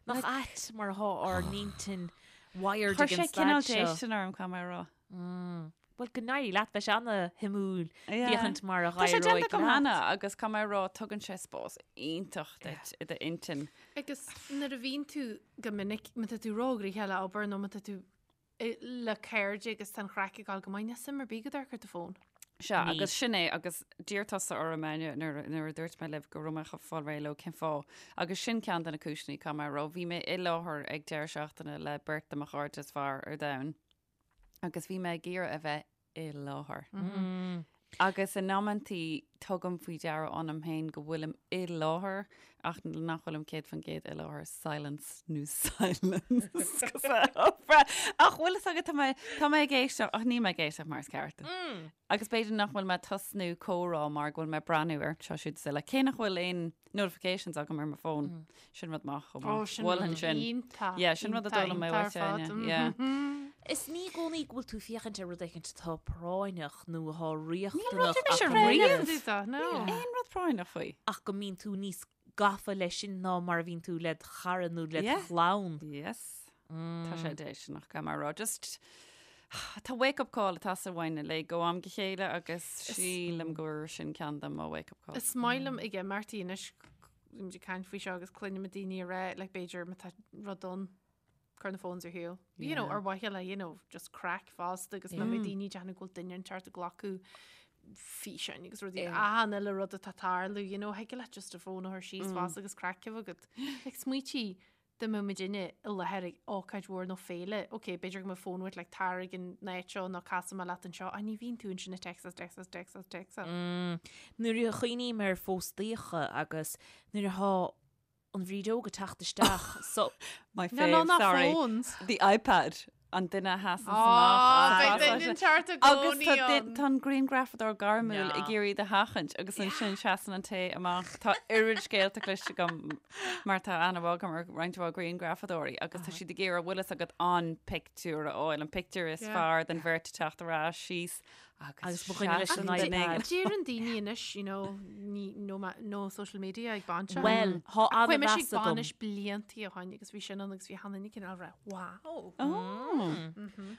Nach ait mar atá ár n-intinn wired ag an staid seo. Chuir sé cineál déistin orm, caithfidh mé a rá. Bhuel, go n-éirí leat, beidh sé ana-shuimiúil féachaint mar a Tá sé dh'éireoidh déanta agam leat. cheana agus caithfidh mé a rá, tugann sé spás iontach duit i d'intinn. Agus nuair a bhíonn tú go minic, má tá tú róghnoitheach le obair nó má tá tú le cairde agus tá an chraic ag dul go maith, níl suim ar bith agat amharc ar do fón. Sea, agus sin é, agus d'iarr tusa orm, Áine, nuair, nuair a dúirt mé libh go raibh mé chun fáil réidh leo, cén fáth? Agus sin ceann de na cúiseanna, caithfidh mé a rá. Bhí mé i láthair ag deireadh seachtaine le beirt de mo chairde is fearr ar domhan, agus bhí mé ag iarraidh a bheith i láthair. Agus in amantaí tugaim faoi deara ionam féin go bhfuilim i láthair ach nach bhfuilim 100% i láthair, silence nó silence. Ach bhfuil fhios agat tá mé tá mé ag éisteacht ach níl mé ag éisteacht mar is ceart. Agus b'fhéidir nach bhfuil mé ag tosnú comhrá mar go bhfuil mé ag breathnú ar seo siúd is eile. Cé nach bhfuil aon notifications agam ar mo fón. Sin rud maith chomh maith. Ó, sin rud iontach. Yeah, sin rud a d'fhoghlaim mé uait, Áine. Yeah. Is ní i gcónaí go bhfuil tú ag féachaint ar rud éicint atá práinneach nó atá riachtanach ach go mbíonn aon rud práinneach faoi. Ach go mbíonn tú níos gafa leis sin ná mar a bhíonn tú led chara nó led chlann. Yes. Tá sé déistineach, caithfidh mé a rá. Just. Tá wake up call ag teastáil uainn uilig ó am go chéile agus sílim gur sin ceann de mo wake up calls. Is maith liom ag imeachtaí anois, bímid ag caint faoi seo agus cluinim daoine ag rá, like b'fhéidir má tá rud ann, cuir na phones ar shiúl. You know, ar mhaithe le, you know, just craic fosta agus ná beidh daoine ag déanamh go bhfuil duine inteacht ag glacadh físeáin agus rudaí achan uile rud atá ag tarlú, you know, thig leat just do phone a chur síos fosta agus craic a bheith agat. Like smaoitigh dá mbeadh muidinne i láthair ag ócáid mhór nó féile, ok, b'fhéidir go mbeadh fón uait like tar ag an áit seo nó casfaidh mé leat anseo, ach ní bhíonn tú ansin ag téacsáil, téacsáil, téacsáil, téacsáil. Nuair a chuimhním ar phóstaíocha agus nuair atá an bhrídeog ag teacht isteach so. My No, no, fave, not sorry. phones. The iPad. An duine a sheasann Á, amach. beidh duine inteacht i Agus gcónaí tá duin- ann. tá an grianghrafadóir gairmiúil Ná. ag iarraidh iad a sheachaint agus ansin seasann an té amach. Tá oiread scéalta cloiste agam mar tá aithne mhaith agam ar roinnt mhaith grianghrafadóirí agus tá siad ag iarraidh bhfuil fhios agat an pictiúr a fháil, an pictiúr is Yeah. fearr den bheirt ag teacht ar ais síos Agus mo dhuine leis an iPad. Deireann daoine anois, you know, ní, no, ma- no social media ag bainiseacha. Bhuel, thá Chuaigh mise an-mheas ag agam. bainis bliantaí ó shin agus bhí sin ann agus bhí achan duine cineál ag rá, wow.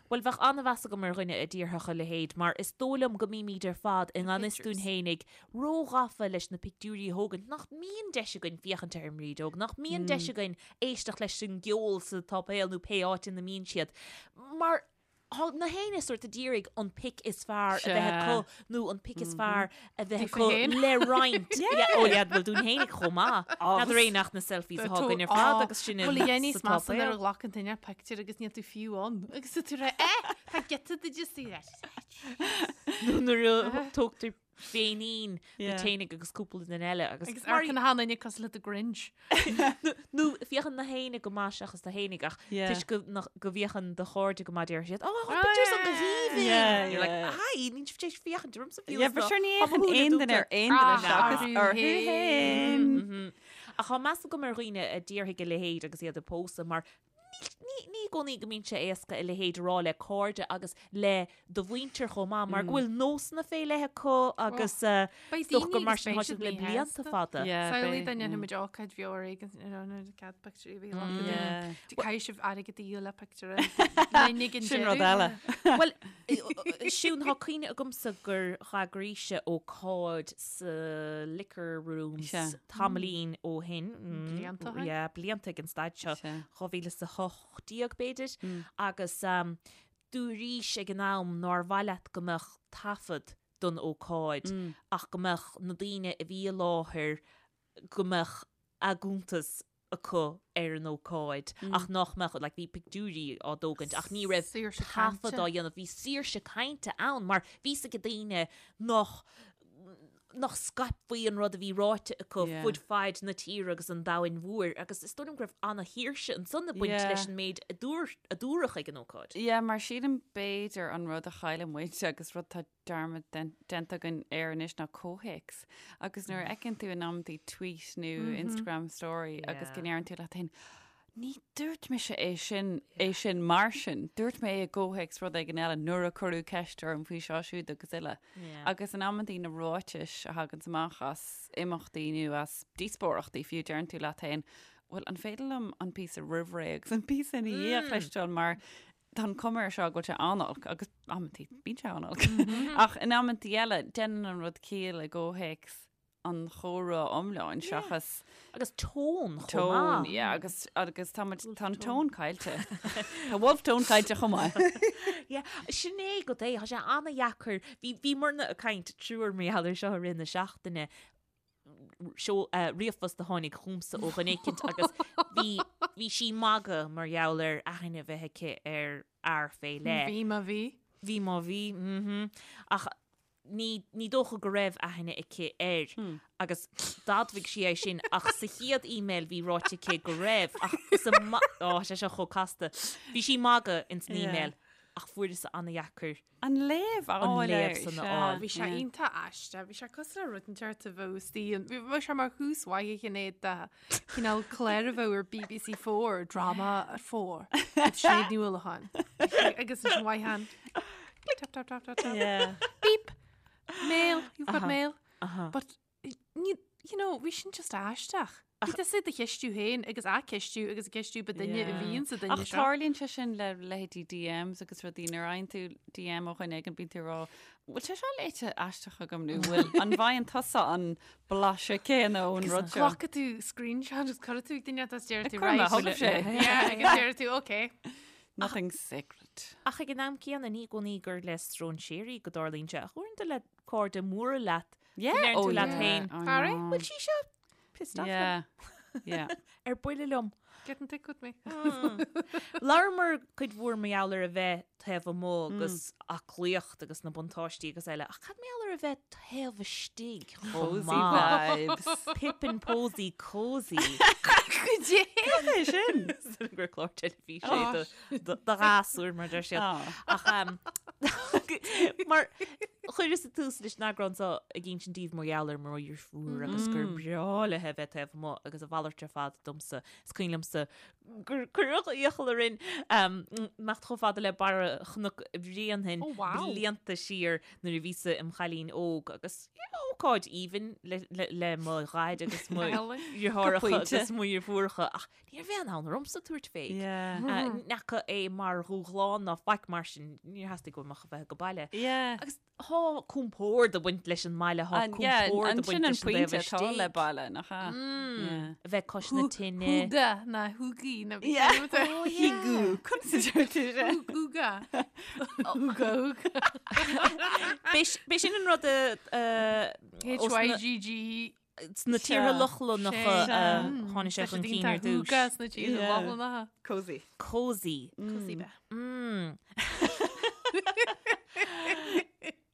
Bhuel, bheadh an-mheas agam ar dhuine a déarfadh a leithéid mar is dóigh liom go mbímid ar fad i ngan fhios dúinn Pictures. fhéinig róghafa leis na pictiúirí a thógaint, nach mbíonn deis againn féachaint ar an mbrídeog, nach mbíonn deis againn éisteacht leis an gceol sa tsáipéal nó pé áit ina mbíonn siad. Mar Thá na héinne sórt ag iarraidh an pic is fearr a bheith acu nó an pic is fearr a bheith acu le roinnt. Ó yeah, bhuel dúinn fhéinig chomh maith. N'fheadar é nach na selfies atá againn ar fad agus sin Bhuel a dhéanfaidh sa measa nuair a tsáipéal. ghlacann duine pictiúr agus níl tú fiú ann. Agus tá tú ag rá, eh, tá giota de just í leis. Nó nuair a tógtar féinín Yeah. duit fhéinig agus cúpla duine eile agus Agus amharcann achan duine cosúil le The Grinch. nó féachann na héinne go maith seachas tú fhéinig ach Yeah. toisc go nach- go bhféachann do chairde go maith deir siad oh, Oh, pictiúr san go yeah. haoibhinn Yeah, You're like yeah. hi níl sibh tar éis féachaint ormsa fiú Yeah, is but ná sure ní tá mo fhéachann shúile aon duine ar dúnta. aon duine Ah, seachas orthu orthu féin. féin. Mhm. Ach tá meas agam ar dhaoine a déarfaidh a leithéid agus iad ag pósadh mar Ní i gcónaí go mbíonn sé éasca a leithéid a rá le cairde agus le do mhuintir chomh maith mar go bhfuil nósanna fé leith acu agus Beidh is dócha gur daoine mar agus sin beidh atá siad siad le blianta míshásta. fada. Samhlaigh dá ndéanfaidh muid ócáid bheo ar éigean you know cead pictiúirí a bheith glactha dúinn. Caithfidh sibh airgead a dhíol le pictiúr linn ag an Sin rud deireadh. eile. Bhuel, Siún, tá cuimhne agamsa gur dh'eagraís ócáid sa Liquor Rooms Sea. tamaillín ó shin. Blianta ó shin? Yeah, blianta ag an staid seo. Sea. 2018 b'fhéidir, agus dúraís ag an am nár mhaith leat go mbeadh taifead don ócáid ach go mbeadh na daoine a bhí i láthair, go mbeadh a gcuntas acu ar an ócáid ach nach mbeadh, like bhí pictiúirí á dtógaint ach ní raibh Saoirse taifead cainte. á dhéanamh, bhí saoirse cainte ann mar bhí 's ag daoine nach nach scaipfí an rud a bhí ráite acu Yeah. fud faid na tíre agus an domhain mhóir agus is dóigh liom go raibh ana-shaoirse ansan ag baint Yeah. leis an méid a dúr- a dúradh ag an ócáid. Yeah, mar sílim b'fhéidir an rud a chailleann muid agus rud tá dearmad déanta againn air anois ná comhthéacs. Agus nuair a fheiceann tú in amantaí tweet nó Instagram story agus go ndeireann tú leat féin, ní dúirt mise é sin, é sin mar sin, dúirt mé é i gcomhthéacs rud éigin eile nuair a cuireadh ceist orm faoi seo siúd agus uile. Agus in amantaí na ráitis a thaganns amach as imeachtaí nó as díospóireachtaí fiú deireann tú leat féin, bhuel an féidir liom an píosa roimh ré agus an píosa ina dhiaidh a chloisteáil mar tá an cuma air seo go bhfuil sé an-olc agus amantaí bíonn sé an-olc. Ach in amantaí eile déanann an rud ciall i gcomhthéacs an chomhrá iomláin seachas Agus tón chomh tón, maith. yeah, agus agus tá muid tá an tón caillte. Tá Wolfe Tone caillte chomh maith. Yeah, sin é go dté, tá sé an-dheacair. Bhí bhíomarna ag caint triúr mar gheall air seo i rith na seachtaine. Seo ríomhphost a tháinig chugamsa ó dhuine éicint agus bhí bhí sí ag magadh mar gheall ar aithne a bheith aici ar fhear fé leith. Bhí má bhí. Bhí má bhí, mhm. Ach ní ní dócha go raibh aithne aici air agus d'admhaigh sí é sin ach sa chéad email bhí ráite aici go raibh ach sa ma- Ó, sé seo chomh casta. Bhí sí ag magadh ins an email ach fuaireas an-dheacair An léamh a An fháil léamh air, san a sea. fháil. Bhí sé iontach aisteach, bhí sé cosúil le rud inteacht a bheadh istigh ann. Bhí sé mar thús mhaith a Shinéad de chineál clár a bheadh ar BBC 4, Drama at 4, with Sinéad Ní Uallacháin. Agus ansin mhaith an. Tap, tap, tap, tap, tap. Yeah. Beep! Mail, you've got mail. But, ní, you know, bhí sin just aisteach. Bhí tusa ag do cheistiú féin agus á ceistiú agus ag ceistiú ba duine a bhíonn sa duine Ach seo. tarlaíonn sé sin le leithéidí DMs agus rudaí nuair a fhaigheann tú DM ó dhuine éigin bíonn tú ag rá bhfuil sé seo léite aisteach agam nó bhfuil an bhfaigheann tusa an blaiseadh céanna ón rud seo? Glacfaidh tú screenshot agus cuirfidh tú ag duine atá deir tú Cuir mé, right. thug sé. Yeah, agus deir tú okay. Nothing sacred. Ach ag an am céanna ní i gcónaí gur le stróinséirí go dtarlaíonn sé ach uaireanta le cairde móra leat Yeah, go ndeireann oh tú leat yeah, féin. I Barry, know. Bhfuil sí seo pissed off liom? Yeah, yeah. Ar buile liom. Getting thick with me. Labhramar cuid mhór mar gheall ar a bheith taobh amuigh agus aclaíocht agus na buntáistí agus eile, ach cad mar gheall ar a bheith taobh istigh chomh Cozy maith? vibes. Pip and Posy cozy. Goidé! Cad é sin? Sin gur clár teilifíse é do- do do ghasúir mar deir siad. Ah. Ach um, mar chuireas tús leis an eagrán seo ag insint daoibh mar gheall ar mo dheirfiúr agus gur breá léi a bheith taobh amuigh agus a mhalairt ar fad domsa. Is cuimhin liomsa gur cuireadh iachall orainn imeacht chomh fada le barra Chnoc Bhréanainn Oh, wow. blianta siar nuair a bhíosa im chailín óg agus ócáid aoibhinn le, le, le mo dhaid agus mo dheartháireacha Go pointe. agus mo dheirfiúracha ach Ní raibh aon fhonn ormsa tabhairt fé. Yeah. Ní fhaca é mar dhúshlán ná faic mar sin, níor theastaigh uaim ach a bheith ag baile. Yeah. Agus tá compord ag baint leis an mbaile, tá An- yeah, compord an ag baint sin an leis an dtaobh pointe atá istigh. le baile, nach ea? Yeah. A bheith cois na tine. Hygge ná hygge na Yeah. Oh, yeah. Hygge. Conas a deir tú sin? Hygge. Hygge, hygge. B'é sin an rud a, a, H Y G G Sna tíortha Lochlannacha a tháinig sé chun cinn ar dtús. Hygge sna tíortha Lochlannacha. Cozy. Cozy. Cozy bheith.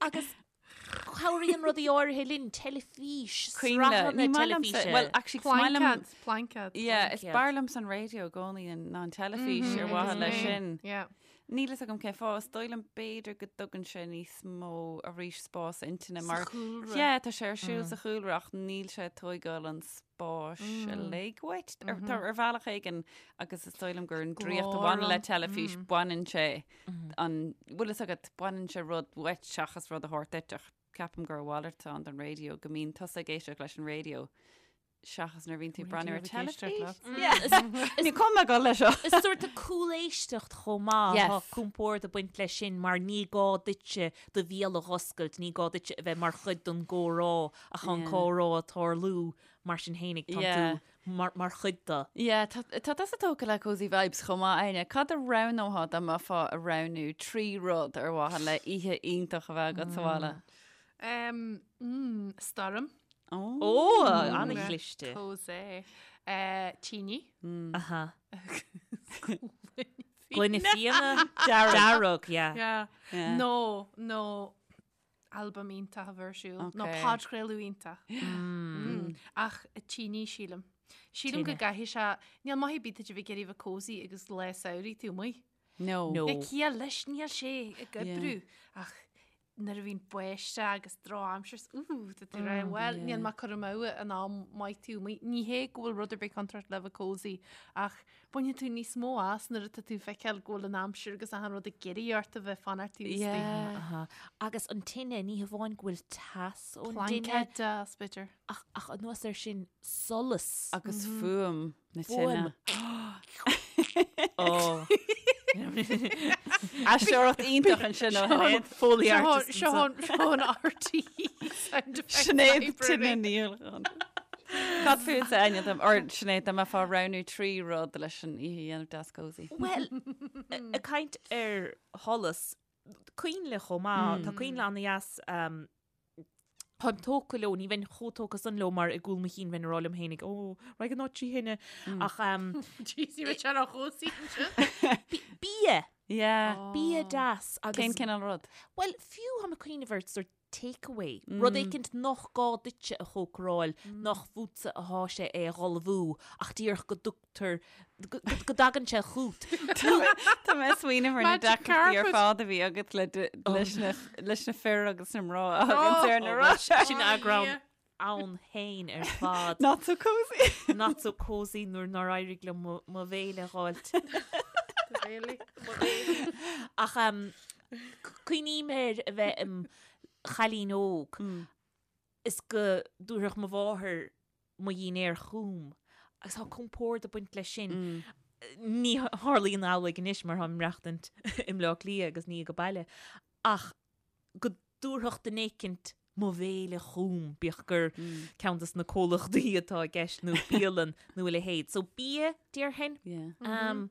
Agus cabhraíonn rudaí áirithe linn, teilifís, sraitheanna teilifíse. Well, actually, is maith liom- Plaincéad, plaincéad. Yeah, is Plaincéad. b'fhearr liomsa an raidió i gcónaí ná an teilifís ar mhaithe leis sin. Yeah. Níl fhios agam cén fáth, is dóigh liom b'fhéidir go dtugann sé níos mó arís spás intinne mar Sa chúlra. Yeah, tá sé ar siúl sa chúlra ach níl sé ag tóigeáil an spáis uilig uait ar tá ar bhealach éigin agus is dóigh liom gur an draíocht a bhaineann le teilifís baineann sé an bhfuil fhios agat baineann sé rud uait seachas rud a thabhairt duit ach ceapaim gur a mhalairt atá ann don raidió go mbíonn tusa ag éisteacht leis an raidió seachas nuair a bhíonn tú ag breathnú ar teilifís. Ní cuma go leis seo. Is sórt de cúléisteacht chomh maith, Yes. tá compord ag baint leis sin mar ní gá duitse do bhéal a dh'oscailt, ní gá duitse a bheith mar chuid den gcomhrá ach tá an Yeah. comhrá ag tarlú mar sin fhéinig, tá Yeah. tú mar, mar chuid de. Yeah, tá tá tusa tógtha le Cozy Vibes chomh maith, Áine. Cad a roghnófá dá mbeifeá ag roghnú 3 rud ar mhaithe le oíche iontach a bheith agat sa bhaile? Um, mm, stoirm. Ó, an-chliste. Cozy. Uh, tine. Aha. Gloine fíona dearg, yeah. Yeah. Yeah. Nó, nó albam iontach a bheith ar siúl. Nó Okay. podchraoladh iontach. Mm. Ach tine sílim. Sílim go Tine. gcaithfidh sé, níl maith ar bith duit a bheith ag iarraidh a bheith cozy agus lá samhraidh tú amuigh. No. No. Níl ciall leis, níl sé ag oibriú. Ach nuair a bhíonn báisteach agus drochaimsir, úúú, tá tú rá, bhuel, níl mé ag cur amú an am maith tú amuigh. Ní hé go bhfuil rud ar bith contráilte le bheith cozy, ach baineann tú níos mó as nuair atá tú ag feiceáil go bhfuil an aimsir agus achan rud ag iarraidh ort a bheith fanacht taobh istigh. Yeah. Aha. Agus an tine, ní hamháin go bhfuil teas ón dtine, Plaincéad deas, b'fhéidir. ach, ach anuas air sin, solas. Agus fuaim na Fuaim. tine. Ó. Aisteoireacht iontach ansin ó Shinéad. Foley Seo artist seo seo an RTÉ sound effects Sinéad library. Tine Ní Uallacháin. Cad fútsa Áine dom or Sinéad dá mbeifeá ag roghnú 3 rud leis an oíche a dhéanamh deas cozy. Well, ag caint ar sholas, coinnle chomh maith, tá coinnle an-dheas um, Táim tógtha leo, ní bheinn chomh tógtha san leo mar i gcúl mo chinn bheinn ag rá liom fhéinig, ó, raghaidh an áit trí thine. Ach um, Jeez, ní raibh sé ró chobhsaí ansin. bia, Yeah. bia deas agus Cén cineál rud? Well, fiú táim ag cuimhneamh ar sort takeaway, rud éicint nach gá duitse a chócaráil, nach fútsa atá sé é a dh'ullmhú, ach díreach go dtugtar, go go dtagann sé chút. Tá mé ag smaoineamh ar na Magic deacrachtaí ar carpet. fad a bhí agat le d- leis na leis na fir agus na mná a thagann ar na Oh, rá. Sin eagrán ann féin ar fad. Not so cozy. Not so cozy nuair nár éirigh liom mo mo bhéile a dh'fháilt. Really? Ach um, cuimhním ar a bheith im chailín óg is go dtabharfadh mo mháthair mo dhinnéar chugam. Agus tá compord ag baint leis sin. Ní tharlaíonn amhlaidh anois mar táim ag maireachtaint i mBleá Cliath agus ní ag baile. Ach go dtabharfadh duine éicint mo bhéile chugam, bíodh gur ceann des na comhlachtaí atá i gceist nó bialann nó a leithéid. So bia, déarfainn. Um,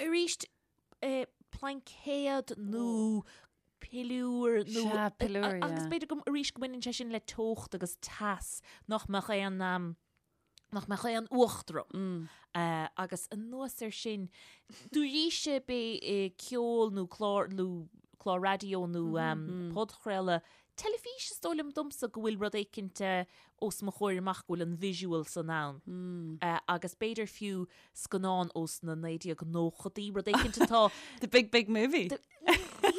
arís, eh, plaincéad nó piliúr nó... Sea, piliúr, Agus yeah. b'fhéidir go, arís go mbaineann sé sin le teocht agus teas nach mbeadh aon, um, nach mbeadh aon fhuacht orm. Mm. Uh, agus anuas air sin, dúraíse bé eh, ceol nó clár, nó clár raidió nó mm -hmm. um, podchraoladh, teilifís is dóigh liom domsa go bhfuil rud éicint eh, os mo chomhair amach go bhfuil an visual san ann. Mm. Uh, agus b'fhéidir fiú scannán ós na 1990idí, rud éicint atá The big big movie. The,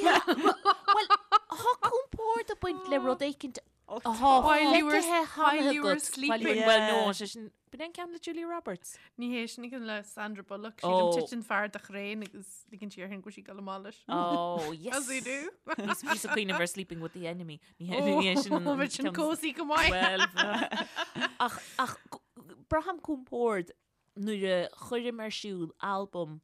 yeah, well, tá compord ag baint le rud éicint atá While you were- feicthe while cheana you were agat. sleeping. Well, no, sé sin, b'in é an ceann le Julia Roberts. Ní hé sin ceann le Sandra Bullock. Oh. Sílim titeann fear de chraein agus ligeann sí uirthi go bhfuil sí ag dul amach leis. Oh, yes. As you do. Bhí bhí cuimhneamh ar Sleeping with the Enemy. Ní hé ní hé sin an Oh, bheadh sin ceann- cozy go maith. Well, ach, ach braithim compord nuair a chuirim ar siúl albam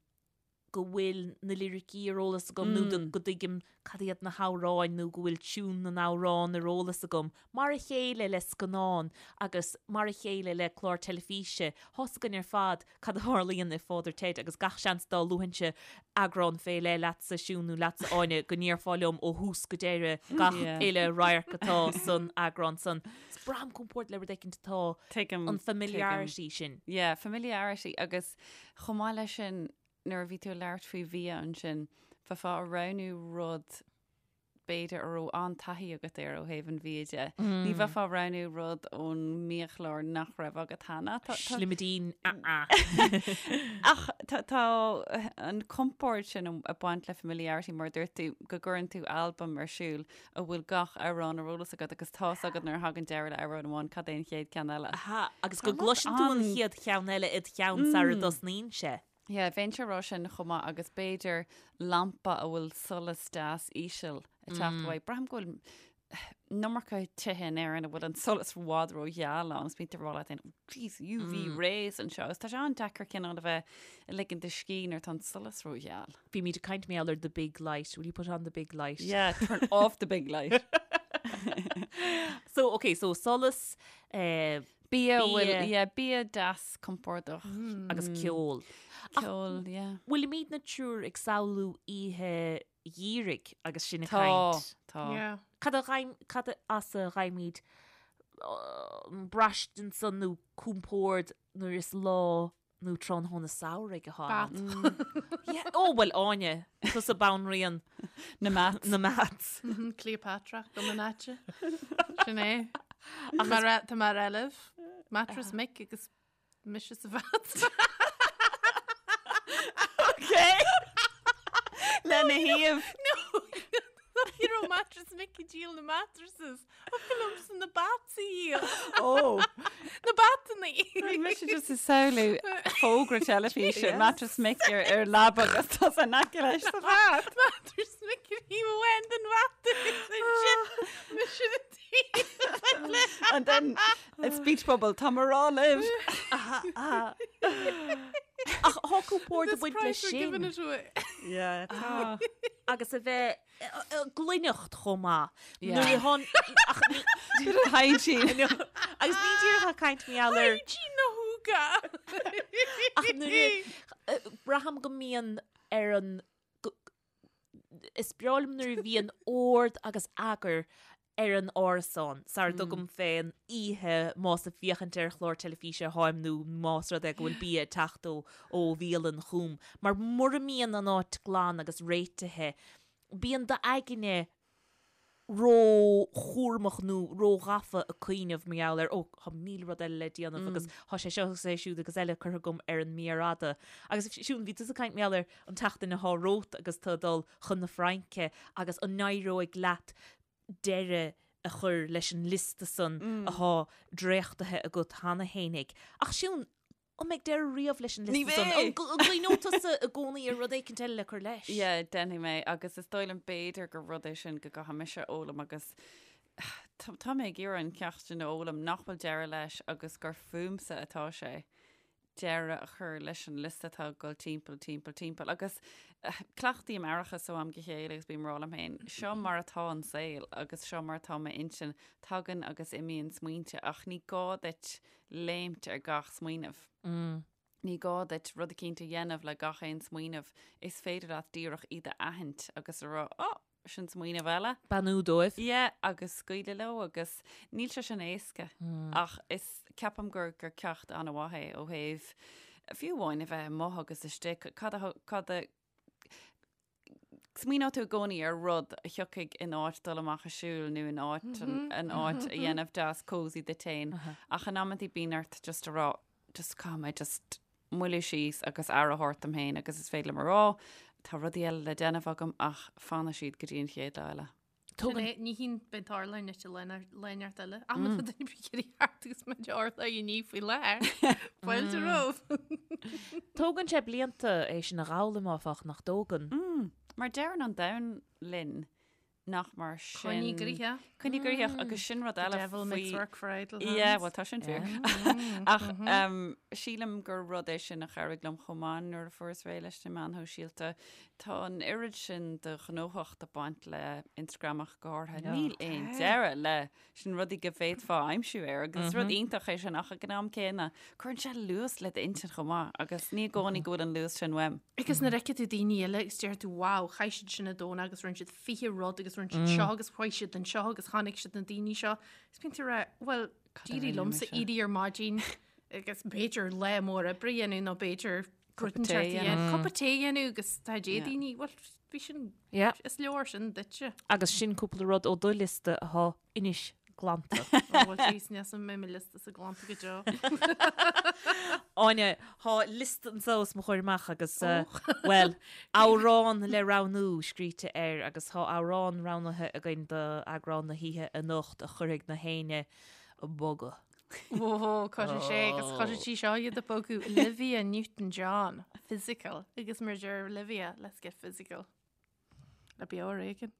go bhfuil na liricí ar eolas agam nó go dtuigim cad iad na hamhráin nó go bhfuil tiún na n-amhrán ar eolas agam, mar a chéile le scannán agus mar a chéile le clár teilifíse. Tá's againn ar fad cad a tharlaíonn i Father Ted agus gach seans dá luafainnse eagrán fé leith leatsa, Siún, nó leatsa, Áine, go ndéarfá liom ó thús go deireadh gach uile radharc atá san eagrán san. Is braithim compord le rud éicint atá Tuigim, an familiarity sin. Yeah, familiarity agus chomh maith leis sin, nuair a bhí tú ag labhairt faoi bhia ansin, bheifeá ag roghnú rud b'fhéidir a raibh an-taithí agat air ó thaobh an bhia de. Ní bheifeá ag roghnú rud ón mbiachlár nach raibh agat cheana. Tá- tá- Slimidín, ah-ah. Ach tá tá an compord sin ag baint le familiarity mar a dúirt tú go gcuireann tú albam ar siúl a bhfuil gach amhrán ar eolas agat agus tá's agat nuair a thagann deireadh le amhrán amháin cad é an chéad ceann eile. Aha, agus go gcloiseann tú an chéad cheann eile id cheann sara dtosnaíonn sé. Yeah, bheinnse ag rá sin chomh maith agus b'fhéidir lampa a bhfuil solas deas íseal ag teacht uaidh. Braithim go bhfuil an iomarca tithe in Éirinn a bhfuil an solas i bhfad rógheal ann agus bíonn tú ag rá leat féin, oh jeez, UV rays anseo agus tá sé an-deacair cineál a bheith ag ligean do scíth nuair atá an solas rógheal. Bímid ag caint mar gheall ar the big light. Will you put on the big light? Yeah, turn off the big light. So, okay, so solas, eh, Bia, bhfuil, Bia. yeah, bia deas compordach. Agus ceol. Ceol, yeah. Bhfuilimidne triúr ag samhlú oíche gheimhridh agus sinn ag Tá, caint? tá. Yeah. Cad a ghaim, cad as a bhfaighimid an braistint san nó compord nuair is lá nó tráthnóna samhraidh atá ann? Bat. Yeah, ó, bhuel, Áine, tusa banríon Na mats. na mats. Cleopatra go an áite. Sin é. Mar a- Tá mar eileh, Mattress Mick agus mise sa vat. Okay. Lena thaobh. No, you know Mattress Mick ag díol na mattresses. Thiocfadh liomsa na bats a dhíol. Ó. Na batanna. Bhí mise just ag samhlú fógra teilifíse Mattress Mick ar ar leaba agus tá san aice leis sa vat. Mattress Mick ar thaobh amháin den vat agus ansin mise na taobh eile. And then a speech bubble, tá mé ag rá libh. Ach tá compord ag This baint leis price we're giving sin it away. Yeah, tá. agus a bheith gcluineacht chomh maith. Yeah. Nuair a thán ach ní Bit of hygiene. agus ní díreach ag caint mar gheall ar Hygiene na húga. ach nuair a braithim go mbíonn ar an go- is breá liom nuair a bhíonn ord agus eagar ar an árasán sara dtugaim fén oíche más ag féachaint ar chlár teilifíse atáim nó más rud é go bhfuil bia ag teacht ó ó bhialann chugam. Mar mura mbíonn an áit glan agus réitithe, bíonn d'aigne ró-chúramach nó ró-ghafa ag cuimhneamh mar gheall ar, ó, tá 1000 rud eile le déanamh agus tá sé seo agus é siúd agus eile curtha agam ar an méar fhada. Agus Siún, bhí tusa ag caint mar gheall ar an tseachtain atá romhat agus tú ag dul chun na Fraince agus an n-éireoidh leat deireadh a chur leis an liosta san athá dréachtaithe agat cheana fhéinig. Ach Siún, an mbeidh deireadh riamh leis an Ní liosta san? bheidh! An gcuimhneoidh tusa i gcónaí ar rud éicint eile le cur leis? Yeah, déanfaidh mé agus is dóigh liom b'fhéidir gur rud é sin go gcaithfidh mise a fhoghlaim agus tá mé ag iarraidh an ceacht sin a fhoghlaim nach bhfuil deireadh leis agus gur fúmsa atá sé. deireadh a chur leis an liosta atá ag dul timpeall, timpeall, timpeall. Agus cleachtaím aireachas ó am go chéile agus bím ag rá liom féin, seo mar atá an saol agus seo mar atá m'intinn, tagann agus imíonn smaointe ach ní gá duit léimt ar gach smaoineamh. Ní gá duit rud eicínt a dhéanamh le gach aon smaoineamh, is féidir leat díreach iad a aithint agus a rá, 'Ó, sin smaoineamh eile. Beannú dóibh. Yeah, agus scaoileadh leo agus níl sé sin éasca ach is, ceapaim gur, gur ceacht an-mhaith é ó thaobh fiú amháin a bheith amuigh agus istigh, cad a, cad a, Smaoineoidh tú i gcónaí ar rud a thiocfaidh in áit dul amach ag siúl nó in áit an áit a dhéanamh deas cosy duit féin. Ach in amantaí bíonn ort just a rá, just caithfidh mé just moilliú síos agus aire a thabhairt dom féin agus is féidir liom a rá, tá rudaí eile le déanamh agam ach fanfaidh siad go dtí an chéad lá eile. Sin é, ní hín beidh tarla an ite léineart eile. Am tá duine bí ag iarraidh thart agus muid orla i ní faoi láthair. Fáilte romhat. Tógann sé blianta é sin a dh'fhoghlaim áfach, nach dtógann? Mar deireann an domhan linn nach mar sin. Coinnigh gnoitheach. Coinnigh gnoitheach agus sin rud eile The devil makes work for idle hands. Yeah, well tá sin fíor. Ach sílim gur rud é sin a chabhraigh liom chomh maith nuair a fuaireas réidh leis na meáin shóisialta. Tá an oiread sin de ghnóthacht ag baint le Instagram ach go háirithe. Níl aon deireadh leis na rudaí go bhféadfá a aimsiú air agus is rud iontach é sin ach ag an am céanna cuireann sé luas le d'intinn chomh maith agus ní i gcónaí go bhfuil an luas sin uaim. Agus nuair a fheiceann tú daoine eile agus deir tú wow, chaith siad sin an Domhnach agus rinne siad 20 rud agus rinne siad seo agus chuaigh siad anseo agus chonaic siad na daoine seo. Is bíonn tú ag rá, well, d'éirigh liomsa éirí ar maidin agus b'fhéidir lá mór oibre a dhéanamh nó b'fhéidir Cupa tae a dhéanamh. Cupa tae a dhéanamh agus tá dé daoine, bhuel, bhí sin, is leor sin duitse. Agus sin cúpla rud ó do liosta atá anois glanta. Ó, bhuel, jeez, níl mé mo liosta sa glanta go deo. Áine, tá liosta anseo os mo chomhair amach agus, bhuel, amhrán le roghnú scríte air agus tá amhrán roghnaithe againn d'eagrán na hoíche anocht a chuirfidh na héinne ag bogadh. Ó, cuirfidh sé agus cuirfidh sí seo iad ag bogadh Olivia Newton-John, physical, agus mar deir Olivia, let's get physical. Le beo ar éigean.